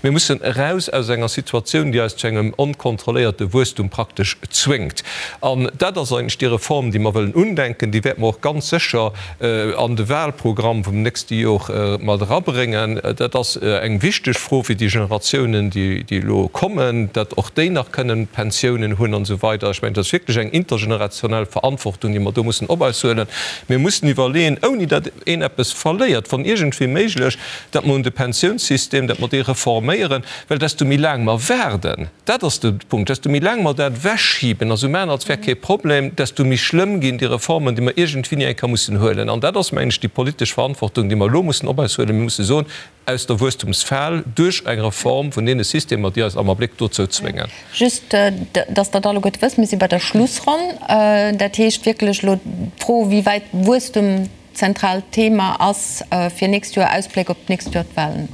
Mir mussen eraus aus enger Situatioun, déi eis zu engem onkontrolléierte Wuesstum praktesch zwéngt. An dat ass eigentlech déi Reform, déi mer wëllen undenken. Déi wäerte mer och ganz sécher an de Wahlprogramm vum nächste Jor mat erabréngen. Dat ass eng wichteg Fro fir déi Generatiounen, déi elo kommen, datt och déi nach kënnen Pensiounen hunn an esou weider. Ech mengen, dat ass wierklech eng intergenerationell Verantwortung, déi mer do mussen op eis huelen. Mir mussen iwwerleeën, ouni datt een eppes verléiert, wann iergendwéi méiglech, datt mer un de Pensiounssystem, datt mer dee reforméieren, well desto méi laang mer waarden, Dat ass de Punkt. Desto méi laang mer dat ewechschiben a sou maachen, als wär kee Problem, desto méi schlëmm ginn déi Reformen, déi mer iergendwéini eng Kéier mussen huelen. An dat ass, mengen ech, déi politesch Verantwortung, déi mer elo mussen op eis huelen. Mir musse soen, aus der Wuesstumsfal duerch eng Reform vun deene Systemer, déi eis am Abléck dozou zwéngen. Just, dass Der et alleguerte wësst, mir si bei der Schlussronn. Dat heescht wierklech elo d'Fro, wéi wäit Wuesstum zentraalt Thema ass fir nächst Joer, Ausbléck op d'nächst Joer, d'Wahlen.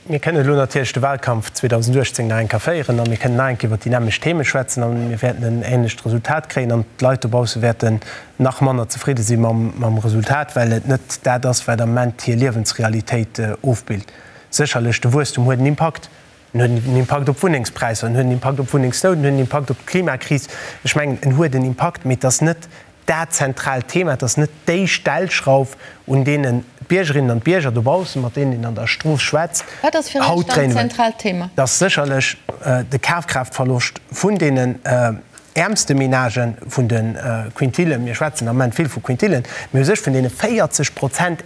Mir kënnen elo natierlech de Wahlkampf 2018 nach eng Kéier féieren a mir kënnen nach eng Kéier iwwert déi nämmlecht Theme schwätzen a mir wäerten en ähnlecht Resultat kréien an d'Leit dobausse wäerten nach manner zefridde si mam Resultat, well et net dat ass, wat am Moment hir Liewensrealitéit ofbilt. Sécherlech, de Wuesstum huet en Impakt. En huet en Impakt op d'Wunnengspräisser, en huet en Impakt op d'Wunnengsnout, en huet en Impakt op d'Klimakris. Ech mengen, en huet en Impakt, mee et ass net dat zentraalt Thema, et ass net déi Stellschrauf, un deenen d'Biergerinnen an d'Bierger dobaussen, mat deenen een an der Strooss schwätzt, Wat ass fir Iech haut dann dréinen. d'zentraalt Thema? Et ass sécherlech de Kafkraaftverloscht vun deenen äermste Menagen, vun de Quintillen, mir schwätzen am Ament vill vu Quintillen, mee u sech vun deene 40 Prozent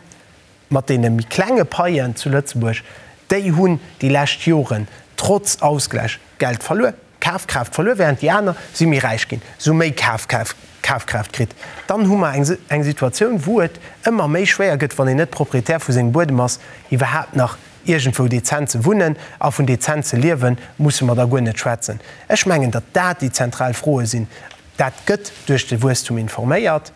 mat deene méi klenge Paien zu Lëtzebuerg, déi hunn déi lescht Joren trotz Ausgläich Geld verluer, Kafkraaft verluer, während déi aner si méi räich ginn, se hu méi Kafkraaft kritt. Dann hu mer eng Situatioun, wou et ëmmer méi schwéier gëtt, wann een net Proprietär vu sengem Buedem ass, iwwerhaapt nach iergendwou dezent ze wunnen. A vun dezent ze liewen, musse mer da guer net schwätzen. Ech mengen, datt dat déi zentral Froe sinn. Dat gëtt duerch de Wuesstum informéiert.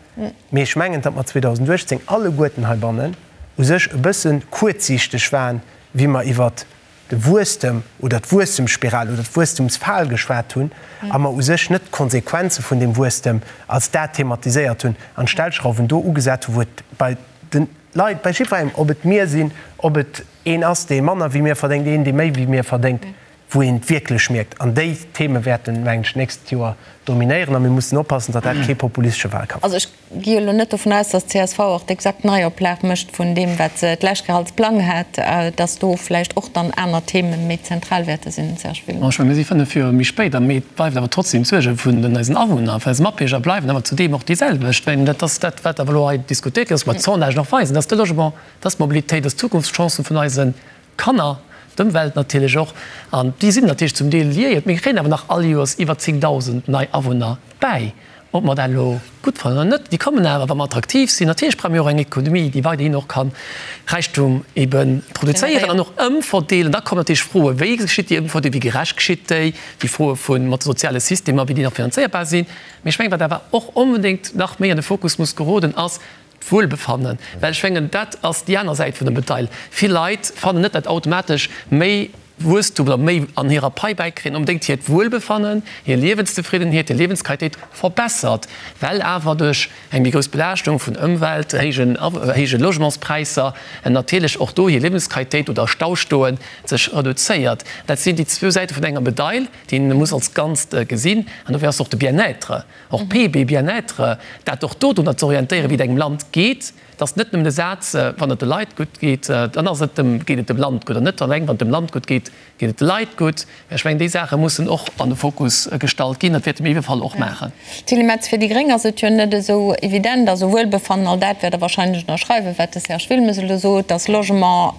Mee ech mengen, datt mer 2018 alleguerten heibannen u sech e bësse kuerzsiichteg waren, wéi mer iwwert de Wuesstem oder d'Wuesstemsspiral oder d'Wuesstemsfal geschwat hunn a mer u sech net d'Konsequenze vun deem Wuesstem als dat thematiséiert hunn an d'Stellschrauwen do ugesat hunn, wou et bei de Leit, bei jiddwerengem, ob et mir sinn, ob et een ass, dee manner wéi mir verdéngt, een, dee méi wéi mir verdéngt, wou een et wierklech mierkt. An déi Theme wäerten, mengen ech, d'nächst Joer dominéieren a mir mussen oppassen, datt dat kee populistesche Wahlkampf gëtt. Also ech gi elo net dovun aus, datt d'CSV och d'exakt Neioplag mécht vun deem, wat se d'lescht Kéier als Plang hat, datt do vläicht och dann aner Theme méi zentral wäerte sinn, Serge Wilmes. Ech mengen, mir si 5 Joer méi spéit a mee et bleift awer trotzdem d'Suerge vun den eisen Awunner, vun eise Matbierger bleiwen awer zudeem och déi selwecht. Well dat ass dat, wat awer elo hei diskutéiert gëtt, ass, wat d'Sondagen och weisen, dat ass de Logement, dat ass d'Mobilitéit, dat ass d'Zukunftschancen vun eise Kanner, d'Ëmwelt natierlech och, an déi sinn natierlech zum Deel liéiert. Mir kréien awer nach all Joers iwwer 10.000 nei Awunner bäi, ob mer dat elo gutt fannen oder net. Déi kommen awer, wa mer attraktiv sinn. Natierlech brauche mir och eng Ekonomie, déi weiderhin och ka Räichtum ebe produzéieren an och ëmverdeelen. Da kommen natierlech Froen, Wéi geschitt déi Ëmverdeelung, wéi gerecht geschitt déi? Déi Froe vu mat de soziale Systemer, wéi déi nach finanzéierbar sinn. Mee ech mengen, wat awer och onbedéngt nach méi an de Fokus muss geroden, ass, D'Wuelbefannen, well ech mengen, dat ass déi aner Säit vun der Medail. Vill Leit fannen net, datt automatesch méi Wuesstum oder méi an hirer Pai bäikréien onbedéngt hiert Wuelbefannen, hir Liewenszefriddenheet, hir Liewensqualitéit verbessert, well awer duerch eng méi grouss Belaaschtung vun Ëmwelt, héijen, héije Logementspräisser natierlech och do hir Liewensqualitéit oder Staustoe sech reduzéiert. Dat sinn déi zwou Säite vun enger Medail, déi een muss als Ganzt gesinn. An dofir ass och de Bien-être Och PIB, Bien-être, dat och do drunner ze orientéieren, wéi et engem Land geet, et ass net nëmmen de Saz, wann et de Leit gutt geet, dann ass et dem, geet et dem Land gutt, an net eleng, wann et dem Land gutt geet, geet et de Leit gutt. Mä ech mengen, déi Saache mussen och an de Fokus gestallt ginn. Dat wäerte mir iwwe Fall och maachen. Tilly Metz, Fir déi Gréng ass et jo net esou evident, also Wuelbefannen, all dat wäert Der wahrscheinlech ënnerschreiwen, wat de Serge Wilmes elo sot, dass Logement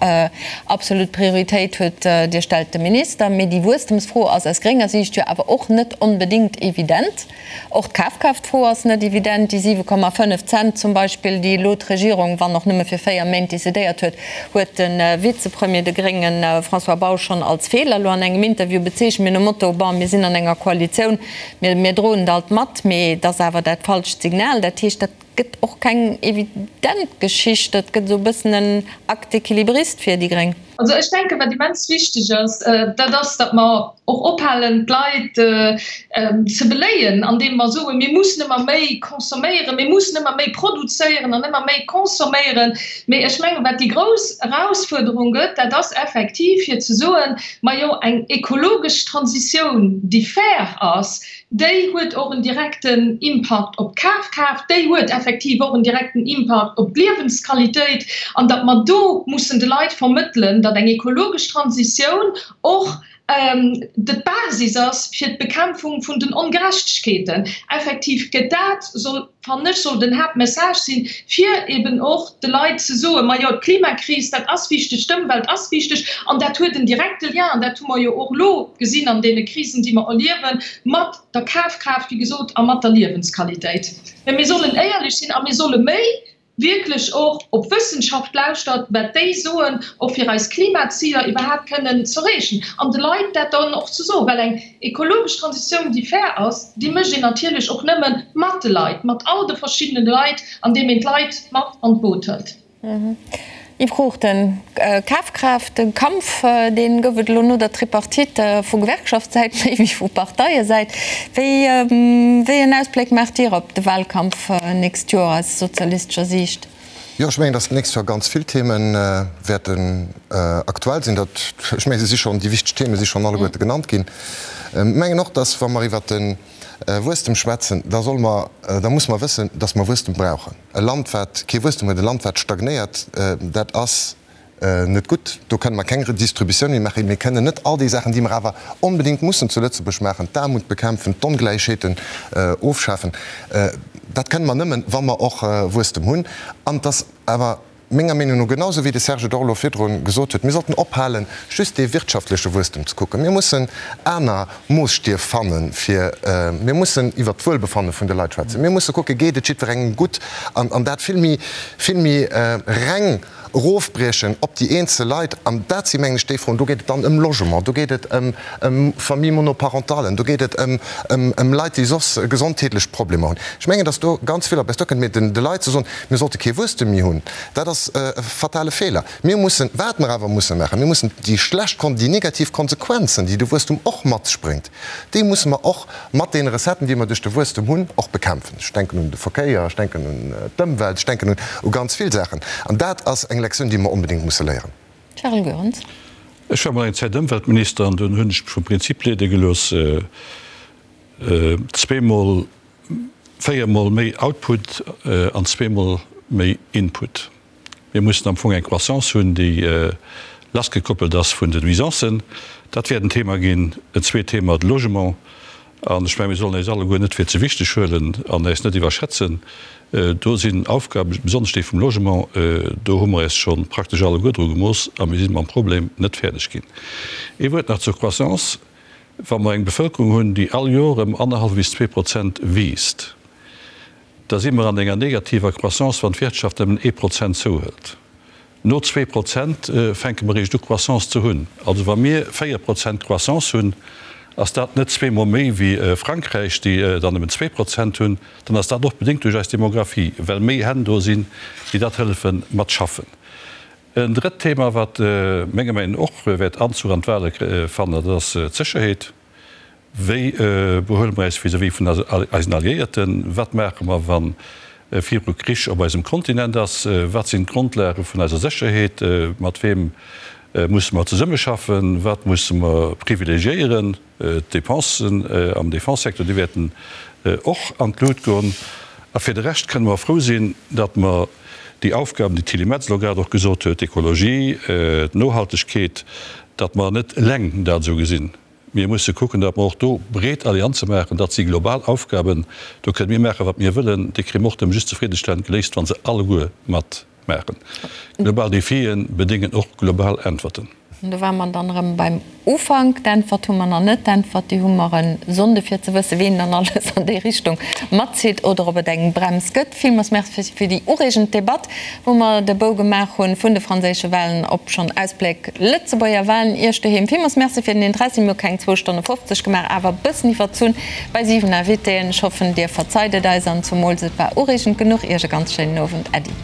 absolut Prioritéit huet, Dir stellt de Minister. Mee déi Wuesstemsfro ass aus grénger Siicht jo awer och net onbedéngt evident. Och d'Kafkraaftfro ass net evident. Déi 7,5 Cent zum Beispill, déi elo d'Regierung, wann och nëmme fir 4 Méint, decidéiert huet, huet de Vizepremier, de grénge François Bausch, schonn als Feeler elo an engem Interview bezeechent, mee nom Motto, Bon, mir sinn an enger Koalitioun, mir, mir droen et alt mat, mee et ass awer dat falscht Signal. Dat heescht, dat gëtt och keng evident Geschicht, dat gëtt esou e bëssen en Acte équilibriste fir déi gréng. Also ech denken, wat immens wichteg ass, dat ass, datt mer och ophalen, d'Leit ze beléien, andeem mer soen, mir mussen ëmmer méi consomméieren, mir mussen ëmmer méi produzéieren an ëmmer méi consomméieren. Mee ech mengen, wat déi grouss Erausfuerderung gëtt, dat ass effektiv fir ze soen, majo, eng ekologesch Transitioun, déi fair ass, déi huet och en direkten Impakt op d'Kafkraaft, déi huet effektiv och en direkten Impakt op d'Liewensqualitéit, an datt mer do mussen de Leit vermëttelen, datt eng ekologesch Transitioun och d'Basis ass fir d'Bekämpfung vun den Ongerechtegkeeten. Effektiv gëtt dat, soll, fannen ech, soll den Haaptmessage sinn, fir eben och de Leit ze soen, Majo, d'Klimakris, dat ass wichteg, d'Ëmwelt ass wichteg an dat huet en direkte Lien, an dat hu mer jo och elo gesinn an deene Krisen, déi mer erliewen, mat der Kafkraaft, wéi gesot, a mat der Liewensqualitéit. Mä mir sollen éierlech sinn a mir solle méi wierklech och op d'Wëssenschaft lauschtert, wat déi soen, och fir eis Klimaziler iwwerhaapt kënnen z'erreechen an de Leit dat dann och ze soen. Well eng ekologesch Transitioun, déi fair ass, déi mécht een natierlech och nëmme mat de Leit, mat all de verschiddene Leit, andeem een d'Leit mat an d'Boot hëlt. Yves Cruchten, Kafkraaft, de Kampf, dee gouf et elo no der Tripartite vu Gewerkschaftssäit méi wéi vu Parteiesäit. Wéi wéi en Ausbléck maacht Dir op de Wahlkampf nächst Joer aus sozialistescher Siicht? Jo, ech mengen, datt d'nächst Joer ganz vill Theme wäerten aktuell sinn. Dat, ech mengen, se si schonn, déi wichteg Theme si schonn alleguerte genannt ginn. Ech mengen och, datt wa mer iwwert de Wuesstem schwätzen, da solle mer, da musse mer wëssen, datt mer Wuesstem brauchen. E Land, wat kee Wuesstem huet, e Land, wat stagnéiert, dat ass net gutt. Do kënne mer keng Redistributioun méi maachen. Mir kënnen net all déi Saachen, déi mer awer onbedéngt mussen zu Lëtzebuerg maachen, d'Aarmut bekämpfen, d'Ongläichheeten ofschafen, dat kënne mer nëmmen, wa mer och Wuesstem hunn. An et ass awer menger Meenung no, genau esou wéi de Serge et och elo virdru gesot huet, mir sollten ophalen, just dee wirtschaftleche Wuesstem ze kucken. Mir mussen aner Moosstief fannen, fir, mir mussen iwwert d'Wuelbefanne vun de Leit schwätzen. Mir musse kucken, geet et jiddwerengem gutt? An dat vill méi, vill méi reng. erofbriechen op déi eenzel Leit, an dat si mengen ech déi Froen, do geet et dann ëm Logement, do geet et ëm Famille monoparentalen, do geet et ëm Leit, déi soss gesondheetlech Problemer hunn. Ech mengen, datt do ganz vill op eis duerkënnt. Mee de Leit ze soen, mir sollte kee Wuesstem méi hunn, dat ass e fatale Feeler. Mir mussen, wat mer awer musse maachen, mir mussen déi schlecht, déi negativ Konsequenzen, déi de Wuesstum och mat sech bréngt, déi musse mer och mat deene Recetten, déi mer duerch de Wuesstum hunn, och bekämpfen. Ech denken un de Verkéier, ech denken un d'Ëmwelt, ech denken u ganz vill Saachen. An dat ass eng Lektioun, déi mer onbedéngt musse léieren. Charles Goerens. Ech war mol eng Zäit Ëmweltminister an dunn hunn ech mech vum Prinzip leede gelooss, zweemol, véiermol méi Output an zweemol méi Input. Mir mussen am Fong eng Croissance hunn, déi lassgekoppelt ass vun den Nuisancen. Dat wäert en Thema ginn. En zweet Thema, de Logement. An ech mengen, mir sollen eis alleguer net fir ze wichteg huelen an äis net iwwerschätzen. Do sinn Aufgaben, besonnesch déi vum Logement, do hu mer äis scho praktesch alleguer dru gemooss a mir si mam Problem net fäerdeg ginn. Ee Wuert nach zur Croissance. Wa mer eng Bevëlkerung hunn, déi all Joer ëm annerhallef bis 2% wiisst, da si mer an enger negativer Croissance, wann d'Wirtschaft nëmmen ee Prozent zouhëlt. No 2% fänke mer eréischt u Croissance ze hunn. Also wa mir 4% Croissance hunn, ass dat net zweemol méi wéi Frankräich, déi der nëmmen 2% hunn. Dann ass dat och bedéngt duerch eis Demographie, well méi Hänn do sinn, déi dat hëllefe mat schaffen. En drëtt Thema, wat menger Meinung no och wäert Anzuch an d'Wahle fannen, dat ass d'Sécherheet. Wéi behuele mer äis vis-à-vis vun eisen Alliéierten? Wat maache mer, wa viru Krich op eisem Kontinent ass? Wat sinn d'Grondlage vun eiser Sécherheet? Mat weem musse mer zesummeschaffen? Wat musse mer privilegiéieren? D'Depensen am Defense-Secteur, déi wäerten och an d'Lut goen. A fir de Rescht kënne mer frou sinn, datt mer déi Aufgaben, déi d'Tilly Metz elo grad och gesot huet, d'Ekologie, d'Nohaltegkeet, datt mer net eleng dat esou gesinn. Mir musse kucken, datt mer och do breet Allianze maachen. Dat si global Aufgaben. Do kënne mir maachen, wat mir wëllen. Déi kréie mer och nëmme just zefriddestellend geléist, wa se alleguer matmaachen. Global Defie bedéngen och global Äntwerten. An do ware mer dann erëm beim Ufank. D'Äntwert hu mer nach net. D'Äntwert, déi hu mer e Sonnde fir ze wëssen, wien dann alles an déi Richtung matzitt oder ob et eng Brems gëtt. Villmools Merci fir déi ureegend Debatt, wou mer de Bou gemaach hu vun de franséische Wahlen op schonn Ausbléck Lëtzebuerger Wahlen. Iech doheem villmools Merci fir den Interessi. Mir hu keng zwou Stonne 50 gemaach, awer e bëssen iwwerzunn bei 7 Invitéen. Ech hoffen, Dir verzeit et eis an zumools et war ureegend genuch. Iech e ganz schéinen Owend. Äddi.